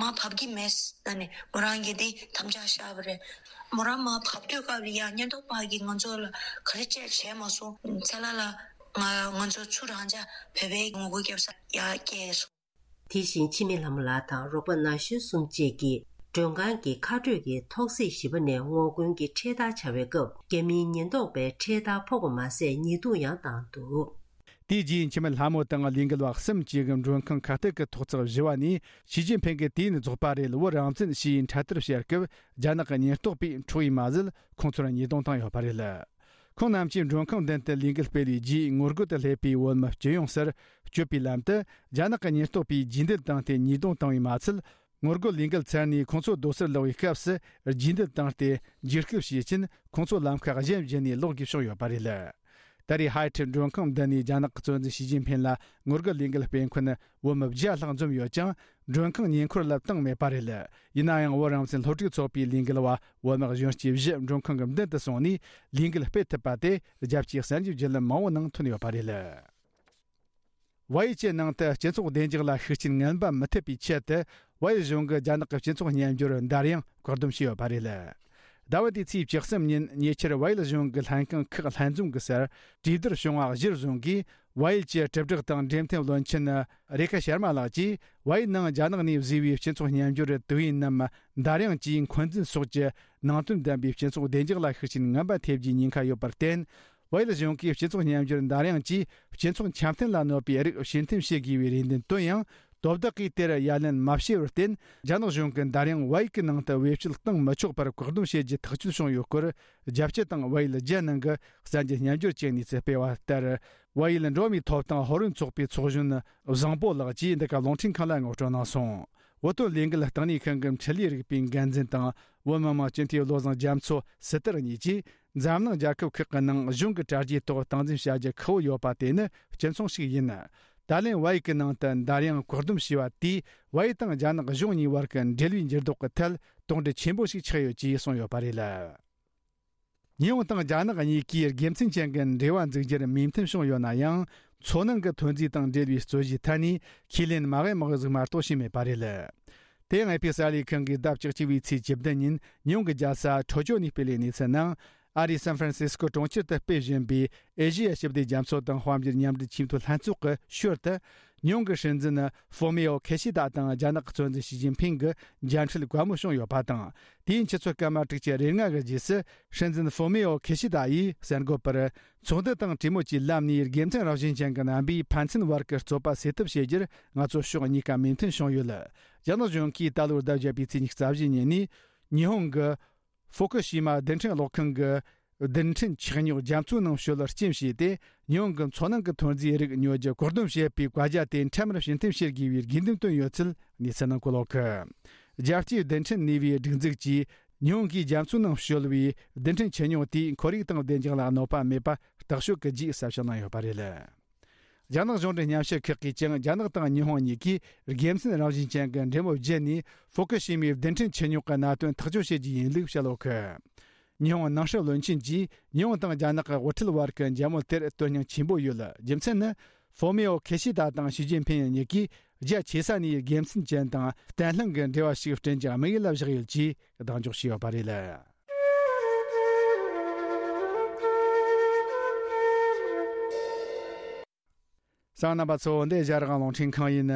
མར་བབས་ཀྱི་མེད་ཟེར་ནས་མོ་རང་གིས་དེ་དམ་བཅའ་བཞག་པ་རེད། མོ་རང་མར་བབས་དུས་སྐབས་ལ་ཡ་ཉེན་རྟོག་པ་གིས་ང་ཚོ་ལ་ག་རེ་བྱས་བྱས་མ་སོང་། ཚེ་ལྷ་ལགས་ང་ང་ཚོ་ཚུར་རང་འཇགས་བོད་པའི་ངོ་རྒོལ་རྒྱབ་ས་ཡ་བསྐྱལ་སོང་། དེ་བཞིན་འཆི་མེད་ལྷ་མོ་ལགས་དང་རོགས་པ་ན་གཞོན་གསུམ་བཅས་ཀྱིས་མགྲོན་ཁང་གི་ཁ་སྤྲོད་ཀྱི་ཐོག་སེར་བཞི་པ་ནས་ངོ་རྒོལ་གྱི་འཕྲེད་དར་འཕྱར་བའི་སྐབས། རྒྱ་མིའི་ཉེན་རྟོག་པས་འཕྲེད་དར་ཕོག་པ་མ་ཟད་ཉེས་རྡུང་ཡང་བཏང་འདུག། དེའི་རྗེས་འཆི་མེད་ལྷ་མོ་དང་ལས་འགུལ་བ་གསུམ་བཅས་ཀྱིས་མགྲོན་ཁང་ཁ་གཏད་ཀྱི་ཐོག་བརྩེགས་བཞི་བ་ནས་ཞི་ཅིན་ཕིང་གིས་དུས་ཡུན་རྫོགས་པ་རེད། བོད་རང་བཙན་ཞེས་འཕྲེད་དར་ཕྱར་སྐབས། རྒྱ་ནག་གི་ཉེན་རྟོག་པས་འཕྲོག་པས་མ་ཟད་ཁོང་ཚོར་ཉེས་རྡུང་བཏང་ཡོད་པ་རེད། ཁོང་རྣམས་ཀྱིས་མགྲོན་ཁང་མདུན་དུ་ལས་འགུལ་སྤེལ་བའི་རྗེས། ངོ་རྒོལ་དུ་སླེབས་པའི་བོད་མི་སྤྱི་ཡོངས་སར་སྐྱོད་པའི་ལམ་དུ་རྒྱ་ནག་གི་ཉེན་རྟོག་པས་རྗེས་འདེད་བཏང་སྟེ་ཉེས་རྡུང་བཏང་བས་མ་ཚད། ངོ་རྒོལ་ལས་འགུལ་ཚར་ནས་ཁོང་ཚོ་སྡོད་སར་ལོག་པའི་སྐབས་སུ་རྗེས་འདེད་བཏང་སྟེ་འཇིགས་སྐུལ་བྱེད་ཆེད་ཁོང་ཚོ་ལམ་ཁ་གཞན་བརྒྱུད་ནས་ལོག་དགོས་བྱུང་ཡོད་པ་རེད། ད་རེས་ཧ་ཡ་ཊི་མགྲོན་ཁང་མདུན་ནས་རྒྱ་ནག་གི་གཙོ་འཛིན་ཞི་ཅིན་ཕིང་ལ་ངོ་རྒོལ་ལས་འགུལ་སྤེལ་མཁན་བོད་མི་བརྒྱ་ལྷག་འཛོམས་ཡོད་ཀྱང་། མགྲོན་ཁང་ཉེ་འཁོར་ལ་བཏང་མེད་པ་རེད། ཡིན་ན་ཡང་བོད་རང་བཙན་སློབ་ཕྲུག་ཚོགས་པའི་ལས་འགུལ་བ་བོད་མི་གཞོན་སྐྱེས་བཞི་མགྲོན་ཁང་གི་མདུན་དུ་སོང་ནས་ལས་འགུལ་སྤེལ་ཐུབ་པ་དེ་རྒྱལ་སྤྱིའི་གསར་འགྱུར་བརྒྱུད་ལམ་མང་བོའི་ནང་ཐོན་ཡོད་པ་རེད། བལ་ཡུལ་གྱི་ནང་དུ་སྤྱི་ཚོགས་བདེ་འཇགས་ལ་ཤུགས་རྐྱེན་ངན་པ་མི་ཐེབས་པའི་ཆེད་དུ། བལ་ཡུལ་གཞུང་གིས་རྒྱ་ནག་གི་སྤྱི་ཚོགས་སྙན་འགྱུར་འདར་དབྱངས་བཀག་སྡོམ་བྱས་ཡོད་པ་རེད། ཟླ་བ་འདིའི་ཚེས་བཅུ་གསུམ་ཉིན་ཉེ་ཆར་བལ་ཡུལ་གཞུང་གི་ལྷན་ཁང་ཁག་ལྷན་འཛོམས་ཀྱི་སར་གྲོས་བསྡུར་བྱུང་བ་གཞིར་བཟུང་གིས། བལ་ཡུལ་གྱི་དྲིལ་བསྒྲགས་དང་འབྲེལ་མཐུད་བློན་ཆེན་རེ་ཁ་ཤར་མ་ལགས་ཀྱིས། བལ་ཡུལ་ནང་རྒྱ་ནག་ནས་བཟོས་པའི་སྤྱི་ཚོགས་སྙན་འགྱུར་དུས་ཡུན་ནམ་འདར་དབྱངས་ཀྱིས་འཁོན་འཛིན་སོགས་ཀྱི་ནང་དོན་ལྡན་པའི་སྤྱི་ཚོགས་བདེ་འཇགས་ལ་ཤུགས་རྐྱེན་ངན་པ་ཐེབས་རྒྱུའི་ཉེན་ཁ་ཡོད་པར་བརྟེན། བལ་ཡུལ་གཞུང་གིས་སྤྱི་ཚོགས་སྙན་འགྱུར་འདར་དབྱངས་ཀྱིས་སྤྱི་ཚོགས་འཆམ་མཐུན་ལ་གནོད་པའི་རིགས་ཕྱིར་འཐེན་བྱེད་དགོས་པའི་རེ་འདུན་བཏོན་ཡང་། དོ་བདག་གིས་དེར་ཡ་ལན་མ་བྱས་པར་བརྟེན། རྒྱ་ནག་གཞུང་གིས་འདར་དབྱངས་བལ་ཡུལ་གྱི་ནང་དུ་བེད་སྤྱོད་གཏོང་མི་ཆོག་པར་བཀག་སྡོམ་བྱེད་རྒྱུ་ཐག་གཅོད་བྱུང་ཡོད་སྐོར། རྒྱལ་སྤྱི་དང་བལ་ཡུལ་རྒྱལ་ནང་གི་གསར་འགྱུར་སྙན་སྒྲོན་གྱི་གནས་ཚུལ་སྤེལ་བ་ལྟར། བལ་ཡུལ་འགྲོ་བ་མིའི་ཐོབ་ཐང་ཕོ་རོན་ཚོགས་པའི་ཚོགས་གཞོན་བཟང་པོ་ལགས་ཀྱིས་འདི་ག་རླུང་འཕྲིན་ཁང་ལ་ངོ་སྤྲོད་གནང་སོང་། བོད་དོན་ལས་འགུལ་བརྟན་གནས་ཁང་གི་འཕྲིན་ལས་རིག་པའི་འགན་འཛིན་དང་། བོད་མི་མང་སྤྱི་འཐུས་བློ་བཟང་རྒྱ་མཚོ་སི་ཏར་གཉིས་ཀྱིས། འཛམ་གླིང་རྒྱལ་ཁབ་ཁག་གི་ནང་གཞུང་གི་གྲ་རྒྱས་ཐོག་སྟངས་འཛིན་བྱ་རྒྱུ་ཁག་པོ་ཡོད་པ་དེ་ནི་སྤྱི་མཚུངས་ཤིག་ཡིན། ད་ལན་བལ་ཡུལ་གྱི་ནང་དུ་འདར་དབྱངས་བཀག་སྡོམ་བྱས་པ་དེས། བལ་ཡུལ་དང་རྒྱ་ནག་གཞུང་གཉིས་བར་གྱི་འབྲེལ་བའི་འགྱུར་ལྡོག་གི་ཐད་དོགས་འདྲི་ཆེན་པོ་ཞིག་ཆགས་ཡོད་ཅེས་གསུངས་ཡོད་པ་རེད། ཉི་ཧོང་དང་རྒྱ་ནག་གཉིས་ཀས་དགེ་མཚན་ཅན་གྱི་འབྲེལ་བ་འཛུགས་རྒྱུར་མོས་མཐུན་བྱུང་ཡོད་ན་ཡང་། མཚོ་ནང་གི་ཐོན་རྫས་དང་འབྲེལ་བའི་རྩོད་གཞིའི་ཐད་ནས་ཁས་ལེན་མ་དབྱེ་མ་དབྱེ་ཟིག་མ་གཏོགས་བྱས་མེད་པ་རེད། དེ་ཡང་ཨེ་ཕི་གསར་ལས་ཁང་གིས་ཟླ་བཅུ་གཅིག་པའི་ཚེས་བཅུ་བདུན་ཉིན་ཉི་ཧོང་གི་རྒྱལ་ས་ཁྲོ་ཅོ་ནས་སྤེལ་བའི་གནས་ཚུལ་ནང་། ཨ་རིའི་སན་ཧྥ་རན་སི་སྐོ་གྲོང་ཁྱེར་དུ་སྤེལ་བཞིན་པའི་ཨེ་ཤེ་ཡ་ཞི་བདེ་རྒྱ་མཚོ་དང་དཔལ་འབྱོར་མཉམ་འབྲེལ་ཆེས་མཐོའི་ལྷན་ཚོགས་ཀྱི་ཞོར་དུ། ཉི་ཧོང་གི་སྲིད་འཛིན་ཧྥོ་མེའོ་ཁེ་ཤི་ད་དང་རྒྱ་ནག་གི་གཙོ་འཛིན་ཞི་ཅིན་ཕིང་གི་མཇལ་འཕྲད་བཀའ་མོལ་བྱུང་ཡོད་པ་དང་། དེའི་ཆུ་ཚོད་སྐར་མ་དྲུག་ཅུ་རེ་ལྔ་གི་རྗེས་སུ། སྲིད་འཛིན་ཧྥོ་མེའོ་ཁེ་ཤི་ད་ཡིས་གསར་འགོད་པར། ཚོགས་འདུ་དང་གྲོས་མོལ་གྱི་ལམ་ནས་དགེ་མཚན་རང་བཞིན་ཅན་གྱི་རྣམ་པས་ཕན་ཚུན་བར་གྱི་རྩོད་པ་སེལ་ཐབས་བྱེད་རྒྱུར་ང་ཚོ་ཕྱོགས་གཉིས་ཀ་མོས་མཐུན་བྱུང་ཡོད། རྒྱ་ནག་གཞུང་གིས་ད་ལོའི་ཟླ་བརྒྱད་པའི་ཚེས་ཉི་ཤུ་རྩ་བཞི་ཉིན་ནས་ཉི་ཧོང་གི་ཧྥུ་ཀུ་ཤི་མ་རྡུལ་ཕྲན་གློག་ཁང་གི་རྡུལ་ཕྲན་ཆུ་རྙོག་རྒྱ་མཚོའི་ནང་བཤུད་རྐྱེན་བྱས་ཏེ། ཉི་ཧོང་གི་མཚོ་ནང་གི་ཐོན་རྫས་རིགས་ཉོ་རྒྱུ་བཀག་སྡོམ་བྱེད་པའི་བཀའ་རྒྱ་དེ་འཕྲལ་མར་ཕྱིར་འཐེན་བྱེད་དགོས་པའི་དགོས་འདུན་བཏོན་ཡོད་ཚུལ་གནས་ཚུལ་ནང་གོ་ལོག་གི། རྒྱལ་སྤྱིའི་རྡུལ་ཕྲན་ནུས་པའི་སྒྲིག་འཛུགས་ཀྱིས་ཉི་ཧོང་གིས་རྒྱ་མཚོའི་ནང་བཤུད་པའི་རྡུལ་ཕྲན་ཆུ་རྙོག་དེས་ཁོར་ཡུག་དང་བདེ་འཇགས་ལ་གནོད་པ་མེད་པ་རྟོག་དཔྱོད་ཀྱི་རྗེས་གསལ་བཤད་གནང་ཡོད་པ་རེད། རྒྱ་ནག་གཞུང་འབྲེལ་སྙན་ཞུ་ཁག་གིས་ཀྱང་རྒྱ་ནག་དང་ཉི་ཧོང་གཉིས་ཀས་དགེ་མཚན་རང་བཞིན་ཅན་གྱི་འབྲེལ་མོལ་བརྒྱུད་ནས་ཧྥུ་ཀུ་ཤི་མའི་རྡུལ་ཕྲན་ཆུ་རྙོག་གི་གནད་དོན་ཐག་གཅོད་བྱེད་རྒྱུ་ཡིན་ལུགས་བཤད་ཡོད་གི། ཉི་ཧོང་ནང་སྲིད་བློན་ཆེན་གྱིས་ཉི་ཧོང་དང་རྒྱ་ནག་གི་དབུ་ཁྲིད་བར་གྱི་མཇལ་མོལ་དེར་དོན་སྙིང་ཆེན་པོ་ཡོད། རྒྱུ་མཚན་ནི། ཧྥོ་མེའོ་ཁེ་ཤི་ད་དང་ཞི་ཅིན་ཕིན་གཉིས་ཀས་རྒྱ་ཆེ་ས་ནས་དགེ་མཚན་ཅན་དང་བརྟན་ལྷིང་གི་འབྲེལ་བ་ཞིག་བསྐྲུན་རྒྱུའི་དམིགས་ཡུལ་བཞག་ཡོད་ཅེས་གདེང་འཇོག་བྱས་ཡོད་པ་རེད། གསན་མཁན་རྣམ་པ་ཚོ། འདི་ཨེ་ཤ་ཡ་རང་དབང་རླུང་འཕྲིན་ཁང་ཡིན།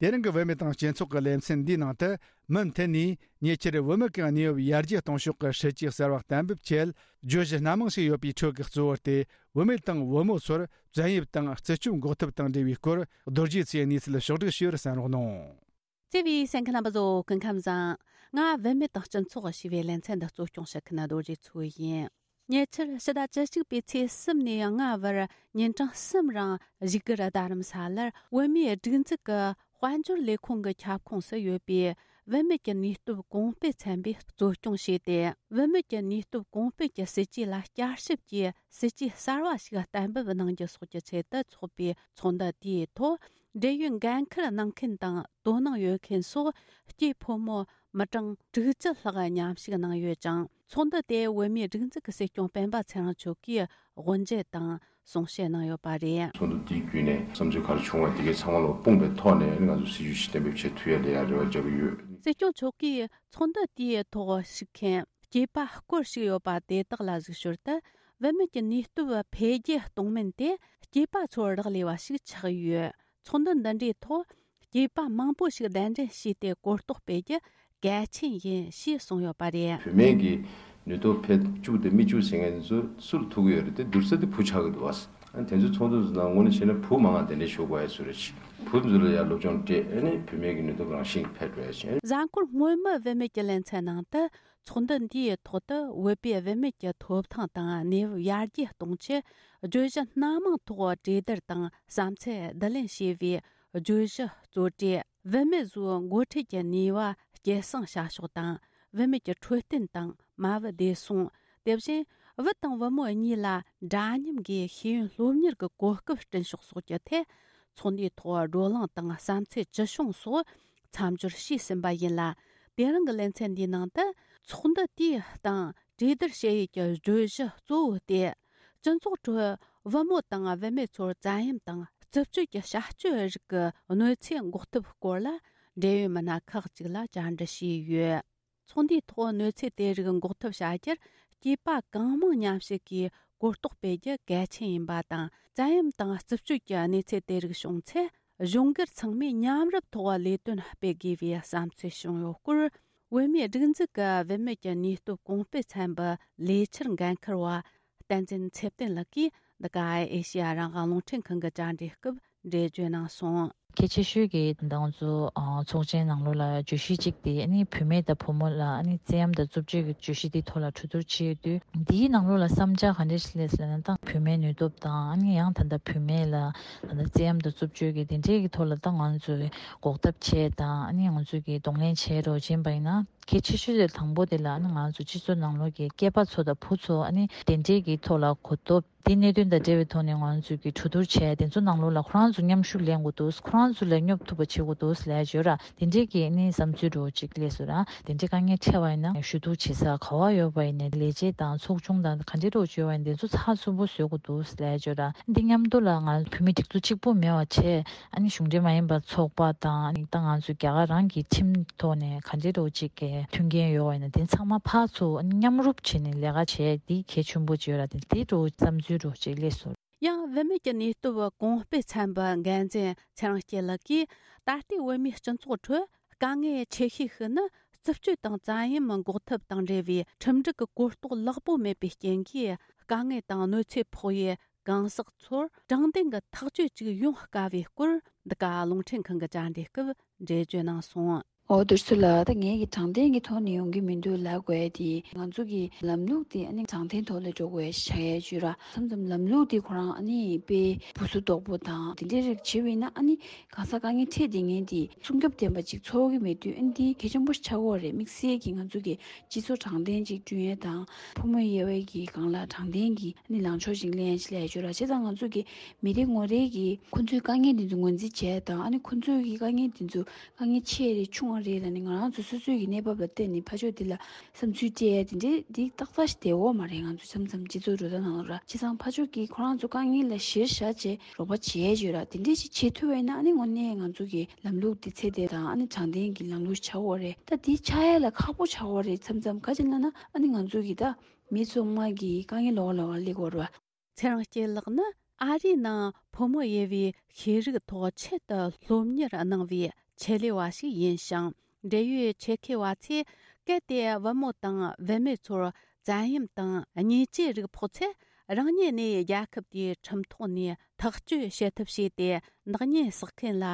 དེ་རིང་གི་བུད་མེད་དང་སྤྱི་ཚོགས་ཀྱི་ལེ་ཚན་འདིའི་ནང་དུ། མུ་མཐུད་ནས་ཉེ་ཆར་བུད་མེད་ཀྱི་གནས་བབ་ཡར་རྒྱས་གཏོང་ཕྱོགས་ཀྱི་སྲིད་ཇུས་གསར་བ་གཏན་འབེབས་ཆེད། བརྗོད་གཞི་སྣ་མང་ཞིག་ཡོད་པའི་ཁྲོད་ཀྱི་གཙོ་བོ་དེ། བུད་མེད་དང་བུ་མོ་ཚོར་བཙན་གཡེམ་དང་རྩིས་སྤྱོད་འགོག་ཐབས་དང་འབྲེལ་བའི་སྐོར། རྡོ་རྗེ་ཚེ་གནས་ཚུལ་ཕྱོགས་བསྒྲིགས་ཞུས་པར་གསན་རོགས་གནང་། བརྩེ་བའི་གསན་མཁན་རྣམ་པ་ཚོ་སྐུ་ཁམས་བཟང་། ང་བུད་མེད་དང་སྤྱི་ཚོགས་ཞེས་པའི་ལེ་ཚན་འདི་གཙོ་སྐྱོང་བྱེད་མཁན་རྡོ་རྗེ་མཚོ་ཡིན། ཉེ་ཆར་ཕྱི་ཟླ་བཅུ་གཅིག་པའི་ཚེས་གསུམ་ནས་ལྔ་བར་ཉིན་གྲངས་གསུམ་རིང་བཞུགས་སྒར་རྡ་རམ་ས་ལར་བོད་མིའི་སྒྲིག་འཛུགས་ཀྱི་དཔལ་འབྱོར་ལས་ཁུངས་ཀྱི་ཁྱབ་ཁོངས་སུ་ཡོད་པའི་བུད་མེད་ཀྱི་ནུས་སྟོབས་གོང་སྤེལ་ཚན་པས་གཙོ་སྐྱོང་བྱས་ཏེ། བུད་མེད་ཀྱི་ནུས་སྟོབས་གོང་སྤེལ་གྱི་སྲིད་ཇུས་ལ་བསྐྱར་ཞིབ་ཀྱིས་སྲིད་ཇུས་གསར་བ་ཞིག་གཏན་འབེབས་གནང་རྒྱུ་སོགས་ཀྱི་ཆེད་དུ་འཚོགས་པའི་ཚོགས་འདུ་དེའི་ཐོག་འབྲེལ་ཡོད་འགན་འཁུར་གནང་མཁན་དང་དོ་སྣང་ཡོད་མཁན་སོགས་སྐྱེས་ཕོ་མོ་མི་གྲངས་དྲུག་ཅུ་ལྷག་མཉམ་ཞུགས་གནང་ཡོད་ཅིང་། ཚོགས་འདུ་དེ་བོད་མིའི་སྒྲིག་འཛུགས་ཀྱི་སྲིད་སྐྱོང་སྤེན་པ་ཚེ་རིང་མཆོག་གིས་དབུ་འབྱེད་དང་གསུང་བཤད་གནང་ཡོད་པ་རེད། ཚོགས་འདུ་དེའི་བརྒྱུད་ནས་བསམ་ཚུལ་ག་རེ་བྱུང་བ་དེ་གའི་ཚང་མ་ལ་དཔུང་པའི་ཐོག་ནས་ང་ཚོ་སྲིད་ཇུས་ཤིག་གཏན་འབེབས་བྱེད་ཐུབ་ཡ་ལ་ཡ་རེ་བ་རྒྱག་གི་ཡོད། སྲིད་སྐྱོང་མཆོག་གིས་ཚོགས་འདུ་དེའི་ཐོག་ཞུགས་མཁན་སྐྱེས་པ་སྐོར་ཞིག་ཡོད་པ་དེ་དག་ལ་གཟིགས་ཞོར་དུ། བུད་མེད་ཀྱི་ནུས་སྟོབས་འཕེལ་རྒྱས་གཏོང་མིན་དེ་སྐྱེས་པ་ཚོར་རག་ལས་པ་ཞིག་ཆགས་ཡོད། ཚོགས་འདུ་འདི་འདྲའི་ཐོག་སྐྱེས་པ་མང་པོ་ཞིག་གདན་འདྲེན་བྱས་ཏེ་གོ་རྟོགས་སྤེལ་རྒྱུ་གལ་ཆེན་ཡིན་ཞེས་གསུངས་ཡོད་པ་རེད། བུད་མེད་ཀྱི་ནུས་སྟོབས་འཕེལ་བཅུག་དང་མི་བཅུག་ཟེར་མཁན་ཚོ་སུ་ལ་ཐུག་གི་ཡོད་རེད་དེ། བསྡུར་ས་དེ་བུ་ཆགས་ཀྱི་འདུག་བ། ཨ་ནི་དེ་ཚོའི་ཚོགས་འདུ་ནང་ངོས་ནས་བྱས་ན་བུ་མང་བ་གདན་འདྲེན་ཞུ་དགོས་ཡ་བཟོ་རེད། བུ་ཚོ་ལ་ཡ་སློབ་སྦྱོང་སྤྲད། ཨ་ནི་བུད་མེད་ཀྱི་ནུས་སྟོབས་རང་བཞིན་འཕེལ་འགྲོ་ཡ་བྱས། གཟའ་འཁོར་སྔོན་མའི་བུད་མེད་ཀྱི་ལེ་ཚན་ནང་དུ་ཚོགས་འདུ་འདིའི་ཐོག་ཏུ་བོད་པའི་བུད་མེད་ཀྱི་ཐོབ་ཐང་དང་གནས་བབ་ཡར་རྒྱས་གཏོང་ཆེད་བརྗོད་གཞི་སྣ་མང་ཐོག་གྲོས་བསྡུར་དང་བསམ་ཚུལ་བསྡུ་ལེན་བྱས་པའི་བརྗོད་གཞི་གཙོ་གྲས། བུད་མེད་ཚོའི་འགོ་ཁྲིད་ཀྱི་ནུས་པ་སྐྱེད་སྲིང་བྱ་ཕྱོགས་དང་། བུད་མེད་ཀྱི་འཕྲོད་བསྟེན་དང་མ་བུ་བདེ་སྲུང་། དེ་བཞིན་བུ་དང་བུ་མོ་གཉིས་ལ་འདྲ་མཉམ་གྱི་ཤེས་ཡོན་སློབ་གཉེར་གྱི་གོ་སྐབས་བསྐྲུན་ཕྱོགས་སོགས་ཀྱི་ཐད། ཚོགས་འདུའི་ཐོག་བགྲོ་གླེང་དང་བསམ་ཚུལ་ཇི་བྱུང་སོགས་མཚམས་སྦྱོར་བྱས་ཟིན་པ་ཡིན་ལ། དེ་རིང་གི་ལེ་ཚན་འདིའི་ནང་དུ་ཚོགས་འདུ་དེའི་སྟེང་གྲོས་བསྡུར་བྱེད་ཡུལ་གྱི་བརྗོད་གཞི་གཙོ་བོ་སྟེ། སྤྱི་ཚོགས་ཁྲོད་བུ་མོ་དང་བུད་མེད་ཚོར་བཙན་གཡེམ་དང་རྩུབ་སྤྱོད་ཀྱི་བྱ་སྤྱོད་རིགས་ཀྱི་གནོད་འཚེ་འགོག་ཐབས་སྐོར་ལ་འབྲེལ་ཡོད་མི་སྣ་ཁག་ཅིག་ལ་བཅར་འདྲི་བྱས་ཡོད། ཚོགས་འདུའི་ཐོག་གནོད་འཚེ་དེ་རིགས་འགོག་ཐབས་བྱ་རྒྱུར་སྐྱེས་པ་གང་མང་མཉམ་ཞུགས་ཀྱིས་གོ་རྟོགས་སྤེལ་རྒྱུ་གལ་ཆེན་ཡིན་པ་དང་། བཙན་གཡེམ་དང་རྩུབ་སྤྱོད་ཀྱི་གནས་ཚུལ་དེ་རིགས་བྱུང་ཚེ། གཞུང་སྒེར་ཚང་མས་མཉམ་རུབ་ཐོག་ལས་དོན་སྤེལ་དགོས་པའི་བསམ་ཚུལ་བྱུང་ཡོད་སྐོར། བོད་མིའི་སྒྲིག་འཛུགས་ཀྱི་བུད་མེད་ཀྱི་ནུས་སྟོབས་གོང་སྤེལ་ཚན་པའི་ལས་འཆར་འགན་འཁུར་བ་བསྟན་འཛིན་ཚེ་བརྟན་ལགས་ཀྱིས་འདི་ག་ཨེ་ཤེ་ཡ་རང་དབང་རླུང་འཕྲིན་ཁང་གི་བཅར་འདྲིའི་སྐབས་འགྲེལ་བརྗོད་གནང་སོང་། གལ་ཆེ་ཤོས་ཀྱི་ད་ང་ཚོ་ཨ་ཚོགས་ཆེན་ནང་ལོགས་ལ་བརྗོད་གཞི་གཅིག་དེ་ཨ་ནི་བུད་མེད་དང་བུ་མོ་ལ་ཨ་ནི་བཙན་གཡེམ་དང་རྩུབ་སྤྱོད་ཀྱི་བརྗོད་གཞི་དེའི་ཐོག་ལ་གྲོས་བསྡུར་བྱས་ཡོད་དུས། འདིའི་ནང་ལོགས་ལ་བསམ་འཆར་ག་འདྲ་ཞིག་སླེབས་ཟེར་ན། ད་བུད་མེད་ནུས་སྟོབས་དང་ཨ་ནི་ཡང་ད་ལྟ་བུད་མེད་ལ་ད་ལྟ་བཙན་གཡེམ་དང་རྩུབ་སྤྱོད་ཀྱི་དེ་འདྲའི་གི་ཐོག་ལ་ད་ང་ཚོས་འགོག་ཐབས་བྱས་དང་ཨ་ནི་ང་ཚོས་ཀྱི་གདོང་ལེན་བྱས་རོགས་བྱིན་པ་ཡིན་ན། གལ་ཆེ་ཤོས་དེ་དང་པོ་དེ་ལ་ཨ་ནི་ང་ཚོ་སྤྱི་ཚོགས་ནང་ལོགས་ཀྱི་སྐྱེས་པ་ཚོ་དང་བུ་ཚོ་ཨ་ནི་དེ་འདྲའི་གི་ཐོག་ལ་གོ་རྟོགས། དེ་གནད་དོན་དང་འབྲེལ་བའི་ཐོག་ནས་ང་ཚོས་ཀྱི་གྲོས་བསྡུར་བྱས། དེ་ཚོ་ནང་ལོགས་ལ་ཁོ་རང་ཚོ་མཉམ་ཞུགས་ལེན་དགོས་འདུག་ཁོ་རང་ཚོ་ལས་སྙོབ་ཐུབ་པ་བྱེད་དགོས་འདུག་ལབ་ཡ་ཡོད་ར། དེ་འདྲའི་གི་ཨ་ནི་བསམ་ཚུལ་འདྲ་བོ་ཅིག་སླེབས་སོང་ར། དེ་འདྲའི་དཀའ་ངལ་འཕྲད་པ་ཡིན་ན་ཞུ་གཏུག་བྱེད་ས་ག་བ་ཡོད་པ་ཡིན་ནའི། ལས་བྱེད་དང་ཚོགས་ཆུང་དང་ག་འདྲའི་འདྲ་བོ་ཅིག་ཡོད་པ་ཡིན་ནའི། དེ་ཚོ་ཚགས་ཚུད་པོ་བཟོ་དགོས་འདུག་ལབ་ཡ་ཡོད་ར། འདི་མཉམ་དུ་ལ་ང་བོད་མི་སྒྲིག་འཛུགས་གཅིག་པུ་མེད་པ་བྱས། ཨ་ནི་གཞུང་འབྲེལ་མ་ཡིན་པ་ཚོགས་པ་དང་། ཨ་ནི་ད་ང་ཚོ་རྒྱ་གར་རང་གི་ཁྲིམས་ཐོག་ནས་ག་འདྲའི་འདྲ་བོ་ཅིག་གི་མཐུན་རྐྱེན་ཡོད་པ་ཡིན་ན། དེ་ཚང་མ་ཕར་ཚུར་ཨ་ནི་མཉམ་རུབ་བྱས་ནས་ལས་ཀ་བྱས། འདི་གལ་ཆེན་པོ་ཅིག་ཡོད་ར། དེ་དེ་འདྲ་བོ་བསམ་ཚུལ་འདྲ་བོ་ཅིག་སླེབས་སོང་། ཡང་བུད་མེད་ཀྱི་ནུས་སྟོབས་གོང་སྤེལ་ཚན་པའི་འགན་འཛིན་ཚེ་རིང་སྐྱིད་ལགས་ཀྱིས། ད་ལྟའི་བོད་མིའི་སྤྱི་ཚོགས་ཁྲོད་དཀའ་ངལ་ཆེ་ཤོས་ཤིག་ནི། རྩུབ་སྤྱོད་དང་བཙན་གཡེམ་འགོག་ཐབས་དང་འབྲེལ་བའི་ཁྲིམས་སྒྲིག་གི་གོ་རྟོགས་ལེགས་པོ་མེད་པའི་རྐྱེན་གྱིས། དཀའ་ངལ་དང་གནོད་འཚེ་ཕོག་པའི་གང་ཟག་ཚོར་དྲང་བདེན་གྱི་ཐག་གཅོད་ཅིག་ཡོང་དཀའ་བའི་སྐོར། འདི་ག་རླུང་འཕྲིན་ཁང་གི་བཅར་འདྲིའི་སྐབས་འགྲེལ་བརྗོད་གནང་སོང་། འོ། བསྡུར་ཚུལ་ལ་ད་ངས་ཀྱི་དྲང་བདེན་གྱི་ཐོག་ནས་ཡོང་གི་མི་འདུག་ལབ་དགོས་ཡ་དེ། ང་ཚོ་གི་ལམ་ལུགས་དེ་ཨ་ནི་དྲང་བདེན་ཐོག་ལ་འགྲོ་དགོས་ཡ་ཆགས་ཡ་ཅིག་ཡོད་ར། མཚམས་མཚམས་ལམ་ལུགས་དེ་ཁོ་རང་ཨ་ནི་དཔེ་སྦུ་སུ་དོག་པོ་དང་དེ་འདྲའི་རིགས་བྱས་པ་ཡིན་ན། ཨ་ནི་གང་ཟག་དཀའ་ངལ་འཕྲད་བསྡད་མཁན་དེ་སྲུང་སྐྱོབ་ལྡན་པ་ཅིག་ཚོར་གྱི་མེད་དུས། ཨ་ནི་དེ་གལ་ཆེན་པོ་ཆགས་ཀྱི་ཡོད་རེད། དམིགས་བསལ་གྱི་ང་ཚོ་གི་སྤྱི་ཚོགས་དྲང་བདེན་ཅིག་བསྐྲུན་ཡ་དང་། ཕོ་མོ་དབྱེ་བ་གི་སྒང་ལ་དྲང་བདེན་གྱི་ཨ་ནི་ལངས་ཕྱོགས་ཤིག་ལེན་ཡ་ཅིག་ལབ་ཡ་ཅིག་ཡོད་ར། བྱས་ཙང་ང་ཚོ་གི་མི་རེ་ངོ་རེ་གིས་ཁོ་ཚོའི་དཀའ་ངལ་འདི་ཚོ་ངོས་འཛིན་བྱས་དང་། ཨ་ནི་ཁོ་ཚོའི་གི་དཀའ་ངལ་འདི་ཚོ་དཀའ་ངལ་ཆེ་རེད་ཆུང་བ་རེད་ལབ་ནས། ང་རང་ཚོ་སོ་སོའི་གི་གནས་བབ་ལ་བལྟས་ནས་ཕར་ཕྱོགས་འདི་ལ་བསམ་ཚུལ་སྤྲད་ཡ་དེ་འདྲའི་འདི་ཏག་ཏག་ཞིག་བསྡད་ཡོད་མ་རེད། ང་ཚོ་མཚམས་མཚམས་སྤྱི་ཚོགས་འགྲོ་སྟངས་ནང་ལ་ར། བྱས་ཙང་ཕར་ཕྱོགས་ཀྱིས་ཁོ་རང་ཚོ་དཀའ་ངལ་ལ་གཞིར་བཞག་བྱས་རོགས་པ་བྱེད་ཡ་ཅིག་ཡོད་ར། དེ་འདྲའི་ཞིག་བྱེད་ཐུབ་པ་ཡིན་ན། ཨ་ནི་དངོས་གནས་ང་ཚོ་གི་ལམ་ལུགས་འདི་ཚད་ལྡན་དང་། ཨ་ནི་དྲང་བདེན་གྱི་ལམ་ལུགས་ཆགས་ཀྱི་ཡོད་རེད། ད་འདི་ཆགས་ཡ་ལ་ཁག་པོ་ཆགས་ཀྱི་ཡོད་རེད། མཚམས་མཚམས་ག་ཅི་ལབ་ན། ཨ་ནི་ང་ཚོ་གི་ད་མི་ཚང་མ་གི་དཀའ་ངལ་ལོགས་ལོགས་ལ་སླེབས་ཀྱི་ཡོད་རེད་བ། ཚེ་རིང་སྐྱིད་ལགས་ནི་ཨ་རིའི་ནང་ཕོ་མོ་དབྱེ་བའི་ཤེས་རིག་ཐོག་ཆེད་དུ་སློབ་གཉེར་གནང་བའི་ཆེད་ལས་པ་ཞིག་ཡིན་ཞིང་། འབྲེལ་ཡོད་ཆེད་མཁས་པ་ཚོས་གལ་ཏེ་བུ་མོ་དང་བུད་མེད་ཚོར་བཙན་གཡེམ་དང་བརྙས་བཅོས་རིགས་ཕོག་ཚེ། རང་ཉིད་ནས་རྒྱལ་ཁབ་དེའི་ཁྲིམས་ཐོག་ནས་ཐག་གཅོད་བྱེད་ཐབས་བྱས་ཏེ། ནག་ཉེས་བསགས་མཁན་ལ་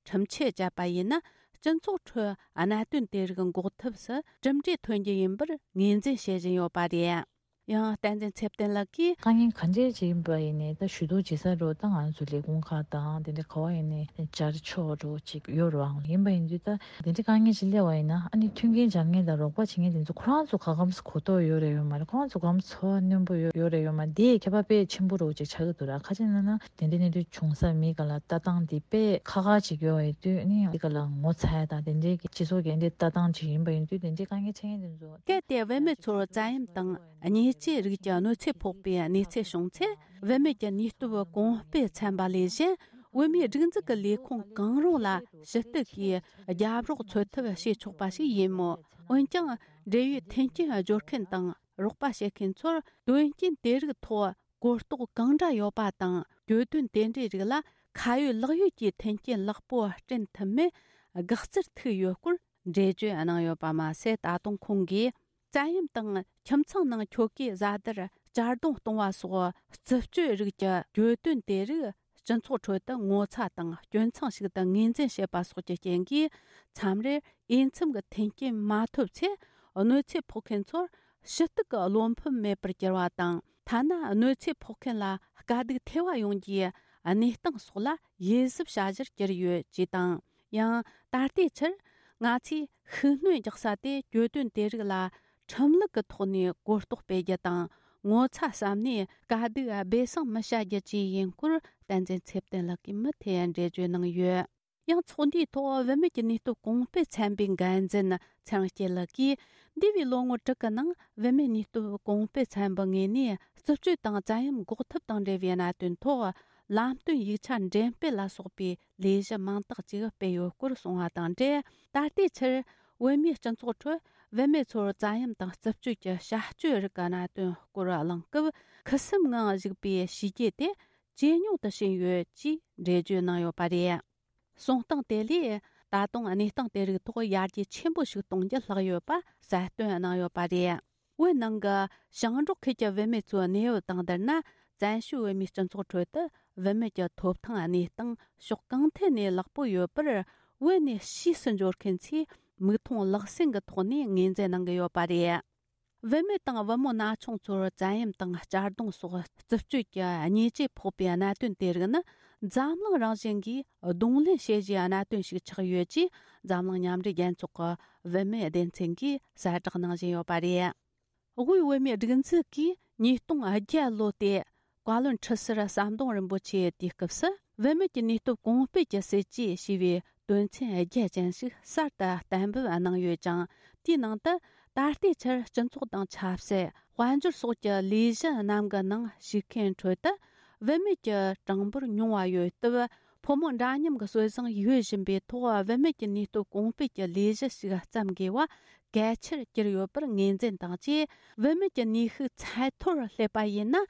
ཁྲིམས་ཆད་བཅད་པ་ཡིན་ན། སྤྱི་ཚོགས་ཁྲོད་གནད་དོན་དེ་རིགས་འགོག་ཐབས་སུ་གྲུབ་འབྲས་ཐོན་རྒྱུ་ཡིན་པར་ངོས་འཛིན་བྱེད་བཞིན་ཡོད་པ་རེད། ཡང་བསྟན་འཛིན་ཚེ་བརྟན་ལགས་ཀྱིས། དཀའ་ངལ་ག་འདྲས་ཅིག་ཡིན་པ་ཡིན་ནའི་ད་ཞུ་གཏུག་བྱེད་ས་རུ་ད་ང་ཚོ་ལས་ཁུངས་ཁག་དང་དེ་འདྲ་ག་བ་ཡིན་ནའི་བཅར་ཆོག་རུ་ཅིག་ཡོད་རུང་ཡིན་པ་ཡིན་དུས་ད་དེ་འདྲའི་དཀའ་ངལ་ཅིག་སླེབས་པ་ཡིན་ན་ཨ་ནི་མཐུན་རྐྱེན་སྦྱར་མཁན་དང་རོགས་པ་བྱེད་མཁན་དེ་ཚོ་ཁོ་རང་ཚོ་ག་གམ་གོ་རྟོགས་ཡོད་རེད་ཡོད་མ་རེད། ཁོ་རང་ཚོ་ག་གམ་ཚོར་བ་རྣོན་པོ་ཡོད་ཡོད་རེད་ཡོད་མ་རེད། དེ་ཁྱད་པར་དཔེ་ཆེན་པོ་རུ་ཅིག་ཆགས་ཀྱི་འདུག་ར། ཁ་ཅིག་ན་ན་དེ་འདྲའི་གནས་དུས་བྱུང་ས་མི་ག་ལ་ལྟ་སྟངས་དེ་དཔེ་ཁག་ཁག་ཅིག་ཡོད་པ་ཡིན་དུས་ཨ་ནི་དེ་ག་ལ་ངོ་ཚ་ཡ་དང་དེ་འདྲའི་གི་སྤྱི་ཚོགས་ཀྱི་འདྲའི་ལྟ་སྟངས་ཅིག་ཡིན་པ་ཡིན་དུས་དེ་འདྲའི་དཀའ་ངལ་འཕྲད་མཁན་དེ་ཚོ། གལ་ཏེ་བུད་མེད་ཚོར་བཙན་གཡེམ་དང་། ཉེས་ཆད་རིགས་ཀྱི་གནོད་འཚེ་ཕོག་པའི་གནས་ཚུལ་བྱུང་ཚེ། བུད་མེད་ཀྱི་ནུས་སྟོབས་གོང་སྤེལ་ཚན་པ་ལས་གཞན། བོད་མིའི་སྒྲིག་འཛུགས་ཀྱི་ལས་ཁུངས་གང་རུང་ལ་ཞུ་གཏུག་གིས་རྒྱབ་རོགས་འཚོལ་ཐབས་བྱེད་ཆོག་པ་ཞིག་ཡིན་མོད། འོན་ཀྱང་། འབྲེལ་ཡོད་མཐུན་རྐྱེན་སྦྱོར་མཁན་དང་རོགས་པ་བྱེད་མཁན་ཚོར་དོན་རྐྱེན་དེ་རིགས་ཐོག་གོ་རྟོགས་གང་འདྲ་ཡོད་པ་དང་། གྱོད་དོན་དེ་འདྲའི་རིགས་ལ་ཁ་ཡོད་ལག་ཡོད་ཀྱི་མཐུན་རྐྱེན་ལེགས་པོ་བསྐྲུན་ཐུབ་མིན་དགག་རྩར་ཐུག་ཡོད་སྐོར། འགྲེལ་བརྗོད་གནང་ཡོད་པ་མ་ཟད། ད་དུང་ཁོང་གིས་བཙན་གཡེམ་དང་ཁྱིམ་ཚང་ནང་ཁྱོ་གའི་བཟའ་ཟླར་གཅར་རྡུང་གཏོང་བ་སོགས་རྩུབ་སྤྱོད་རིགས་ཀྱི་གྱོད་དོན་དེ་རིགས་སྤྱི་ཚོགས་ཁྲོད་དུ་ངོ་ཚ་དང་སྐྱོན་མཚང་ཞིག་ཏུ་ངོས་འཛིན་བྱེད་པ་སོགས་ཀྱི་རྐྱེན་གྱིས། མཚམས་རེར་འོས་འཚམ་གྱི་མཐུན་རྐྱེན་མ་ཐོབ་ཚེ། གནོད་འཚེ་ཕོག་མཁན་ཚོར་ཞུ་གཏུག་གི་བློ་ཕམ་མེད་པར་གྱུར་བ་དང་། ཐ་ན་གནོད་འཚེ་ཕོག་མཁན་ལ་དཀའ་སྡུག་ཐེ་བ་ཡོང་རྒྱུའི་གནས་སྟངས་སོགས་ལ་ཡིད་གཟབ་བྱ་གཞིར་གྱུར་ཡོད་ཅེས་དང་། ཡང་། ད་ལྟའི་ཆར་ང་ཚོས་ཤུགས་སྣོན་རྒྱག་ས་དེ་གྱོད་དོན་དེ་རིགས་ལ་ཁྲིམས་ལུགས་ཀྱི་ཐོག་ནས་གོ་རྟོགས་སྤེལ་རྒྱུ་དང་། ངོ་ཚ་བསམ་ནས་དཀའ་སྡུག་སྦས་གསང་མི་བྱ་རྒྱུ་བཅས་ཡིན་སྐོར། བསྟན་འཛིན་ཚེ་བརྟན་ལགས་ཀྱིས་མུ་མཐུད་འགྲེལ་བརྗོད་གནང་ཡོད། ཡང་། ཚོགས་འདུའི་ཐོག་བུད་མེད་ཀྱི་ནུས་སྟོབས་གོང་སྤེལ་ཚན་པའི་འགན་འཛིན་ཚེ་རིང་སྐྱིད་ལགས་ཀྱིས། འདས་པའི་ལོ་ངོ་དྲུག་གི་ནང་བུད་མེད་ནུས་སྟོབས་གོང་སྤེལ་ཚན་པའི་ངོས་ནས་རྩུབ་སྤྱོད་དང་བཙན་གཡེམ་འགོག་ཐབས་དང་འབྲེལ་བའི་གནད་དོན་ཐོག་ལམ་སྟོན་ཡིག་ཆ་འགྲེམས་སྤེལ་ལ་སོགས་པའི་ལས་གཞི་མང་དག་ཅིག་སྤེལ་ཡོད་སྐོར་གསུངས་པ་དང་འབྲེལ། ད་ལྟའི་ཆར་བོད་མིའི་སྤྱི་ཚོགས་ཁྲོད་བུད་མེད་ཚོར་བཙན་གཡེམ་དང་རྩུབ་སྤྱོད་ཀྱི་བྱ་སྤྱོད་རིགས་ཀྱི་གནད་དོན་སྐོར་གླེང་སྐབས། ཁུ་སིམ་ངང་བཞུགས་པའི་བྱས་རྗེས་དེ་ཇེ་ཉུང་དུ་ཕྱིན་ཡོད་ཅེས་འགྲེལ་བརྗོད་གནང་ཡོད་པ་རེད། གསུང་སྟངས་དེ་ལས་ད་དུང་གནས་སྟངས་དེ་རིགས་ཐོག་ཡར་རྒྱས་ཆེན་པོ་ཞིག་གཏོང་རྒྱུ་ལྷག་ཡོད་པ་གསལ་སྟོན་གནང་ཡོད་པ་རེད། བོད་ནང་གི་ཞིང་འབྲོག་ཁུལ་གྱི་བུད་མེད་ཚོའི་གནས་བབ་དང་བསྡུར་ན། བཙན་བྱོལ་བོད་མིའི་སྤྱི་ཚོགས་ཁྲོད་དུ་བུད་མེད་ཀྱི་ཐོབ་ཐང་གནས་སྟངས་ཕྱོགས་གང་ཐད་ནས་ལེགས་པོ་ཡོད་པར། བོད་ནས་ཕྱིས་སུ་འབྱོར་མཁན་ཚོས་མིག་མཐོང་ལག་ཟིན་གྱི་ཐོག་ནས་ངོས་འཛིན་གནང་གི་ཡོད་པ་རེད། བུད་མེད་དང་བུ་མོ་ན་ཆུང་ཚོར་བཙན་གཡེམ་དང་གཅར་རྡུང་སོགས་རྩུབ་སྤྱོད་ཀྱི་ཉེས་ཆད་ཕོག་པའི་གནད་དོན་དེ་རིགས་ནི། འཛམ་གླིང་རང་བཞིན་གྱིས་གདོང་ལེན་བྱེད་བཞིན་གནད་དོན་ཞིག་ཆགས་ཡོད་ཅེས། འཛམ་གླིང་མཉམ་འབྲེལ་རྒྱལ་ཚོགས་ཀྱི་བུད་མེད་སྡེ་ཚན་གྱིས་གསལ་བསྒྲགས་གནང་བཞིན་ཡོད་པ་རེད། དབུས་བོད་མིའི་སྒྲིག་འཛུགས་ཀྱིས་ཉིས་སྟོང་བརྒྱད་ལོ་སྟེ། བཀའ་བློན་ཁྲི་ཟུར་ཟམ་གདོང་རིན་པོ་ཆེའི་དུས་སྐབས་སུ། བུད་མེད་ཀྱི་ནུས་སྟོབས་གོང་སྤེལ་གྱི་སྲིད་ཇུས་ཞེས་པའི་དོན་ཚན་བརྒྱད་ཅན་ཞིག་གསར་དུ་གཏན་འབེབས་གནང་ཡོད་ཅིང་། དེའི་ནང་དུ་ད་ལྟའི་ཆར་སྤྱི་ཚོགས་དང་ཆབ་སྲིད། དཔལ་འབྱོར་སོགས་ཀྱི་ལས་གཞི་རྣམས་ཀྱི་ནང་ཞུགས་མཁན་ཁྲོད་དུ། བུད་མེད་ཀྱི་གྲངས་འབོར་ཉུང་བ་ཡོད་སྟབས། ཕོ་མོ་འདྲ་མཉམ་གྱི་སྲོལ་བཟང་ཡོད་བཞིན་པའི་ཐོག་བུད་མེད་ཀྱི་ནུས་སྟོབས་གོང་སྤེལ་གྱི་ལས་གཞི་ཞིག་བརྩམ་དགོས་པ་གལ་ཆེར་གྱུར་ཡོད་པར་ངོས་འཛིན་དང་བཅས། བུད་མེད་ཀྱི་ནུས་ཤུགས་ཚད་མཐོར་སླེབས་པ་ཡིན་ན།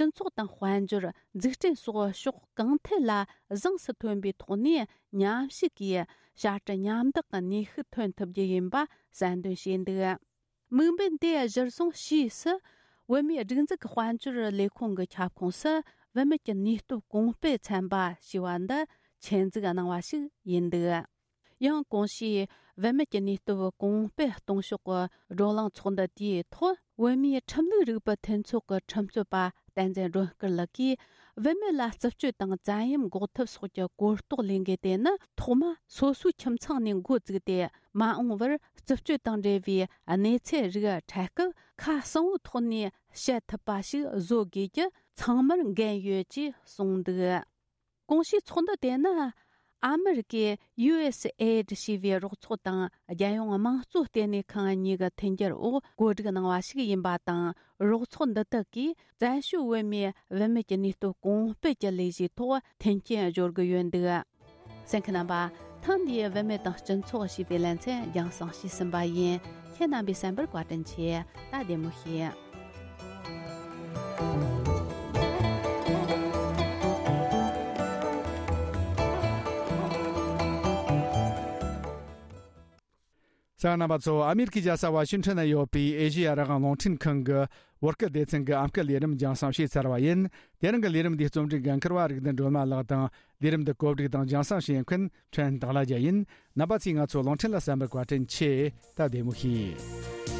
སྤྱི་ཚོགས་དང་དཔལ་འབྱོར། འཛུགས་སྐྲུན་སོགས་ཕྱོགས་གང་ཐད་ལ་གཟེངས་སུ་ཐོན་པའི་ཐོག་ནས་མཉམ་ཞུགས་ཀྱིས་བྱ་སྤྲེལ་མཉམ་བདག་གི་ནུས་ཤུགས་ཐོན་ཐུབ་རྒྱུ་ཡིན་པ་གསལ་འདོན་བྱས་འདུག། དམིགས་འབེན་དེ་གཞིར་བཟུང་ཕྱིས་སུ་བོད་མིའི་སྒྲིག་འཛུགས་ཀྱི་དཔལ་འབྱོར་ལས་ཁུངས་ཀྱི་ཁྱབ་ཁོངས་སུ་བུད་མེད་ཀྱི་ནུས་སྟོབས་གོང་སྤེལ་ཚན་པ་ཞེས་པ་འདི་ཆེད་འཛུགས་གནང་བ་ཞིག་ཡིན་འདུག། ཡང་གོང་ཞུས་བུད་མེད་ཀྱི་ནུས་སྟོབས་གོང་སྤེལ་གཏོང་ཕྱོགས་ཀྱི་བགྲོ་གླེང་ཚོགས་འདུ་དེའི་ཐོག་བོད་མིའི་ཁྲིམས་ལུགས་རིག་པའི་མཐུན་ཚོགས་ཀྱི་ཁྲིམས་རྩོད་པ་བསྟན་འཛིན་སྒྲོལ་དཀར་ལགས་ཀྱིས། བུད་མེད་ལ་རྩུབ་སྤྱོད་དང་བཙན་གཡེམ་འགོག་ཐབས་སོགས་ཀྱི་གོ་རྟོགས་ལེན་དགོས་དེ་ནི། ཐོག་མ་སོ་སོའི་ཁྱིམ་ཚང་ནས་འགོ་བཙུགས་ཏེ། མ་འོངས་པར་རྩུབ་སྤྱོད་དང་འབྲེལ་བའི་གནས་ཚུལ་རིགས་འཕྲད་སྐབས། ཁ་གསལ་བོའི་ཐོག་ནས་བཤད་ཐུབ་པ་ཞིག་བཟོ་དགོས་རྒྱུ་ཚང་མར་འགན་ཡོད་ཅེས་གསུངས་འདུག། གོང་ཞུས་ཚོགས་འདུ་དེ་ནི། ཨ་མི་རི་ཀའི་ཡུ་ཨེས་ཨེ་ཌི་ཞེས་པའི་རོགས་ཚོགས་དང་། རྒྱལ་ཡོངས་དམངས་གཙོ་ལྟེ་གནས་ཁང་གཉིས་ཀྱི་མཐུན་འགྱུར་འོག་གོ་སྒྲིག་གནང་བ་ཞིག་ཡིན་པ་དང་། རོགས་ཚོགས་འདི་དག་གིས་བཙན་བྱོལ་བོད་མིའི་བུད་མེད་ཀྱི་ནུས་སྟོབས་གོང་སྤེལ་གྱི་ལས་གཞིའི་ཐོག་མཐུན་རྐྱེན་སྦྱོར་གྱི་ཡོད་འདུག། གསན་མཁན་རྣམ་པ། ཐེངས་འདིའི་བུད་མེད་དང་སྤྱི་ཚོགས་ཞེས་པའི་ལེ་ཚན་རྒྱང་སྲིང་ཞུས་ཟིན་པ་ཡིན། ཁྱེད་རྣམ་པའི་གསན་པར་བཀའ་དྲིན་ཆེ། ད་བདེ་མོ་བྱོས། གསན་མཁན་རྣམ་པ་ཚོ། ཨ་མེ་རི་ཁའི་རྒྱལ་ས་ཝ་ཤིང་ཊོན་ན་ཡོད་པའི་ཨེ་ཤེ་ཡ་རང་དབང་རླུང་འཕྲིན་ཁང་གི་བོད་སྐད་སྡེ་ཚན་གྱི་ཨམ་སྐད་ལས་རིམ་རྒྱང་སྲིང་བྱས་ཚར་བ་ཡིན། དེ་རིང་གི་ལས་རིམ་འདིའི་རྩོམ་སྒྲིག་འགན་འཁུར་བ་རིག་ལྡན་སྒྲོལ་མ་ལགས་དང་། ལས་རིམ་འདི་གོ་སྒྲིག་དང་རྒྱང་སྲིང་བྱེད་མཁན་ཕྲན་དང་ལ་རྒྱ་ཡིན། རྣམ་པ་ཚོས་ང་ཚོ་རླུང་འཕྲིན་ལ་གསན་པར་བཀའ་དྲིན་ཆེ། ད་བདེ་མོ་བྱོས།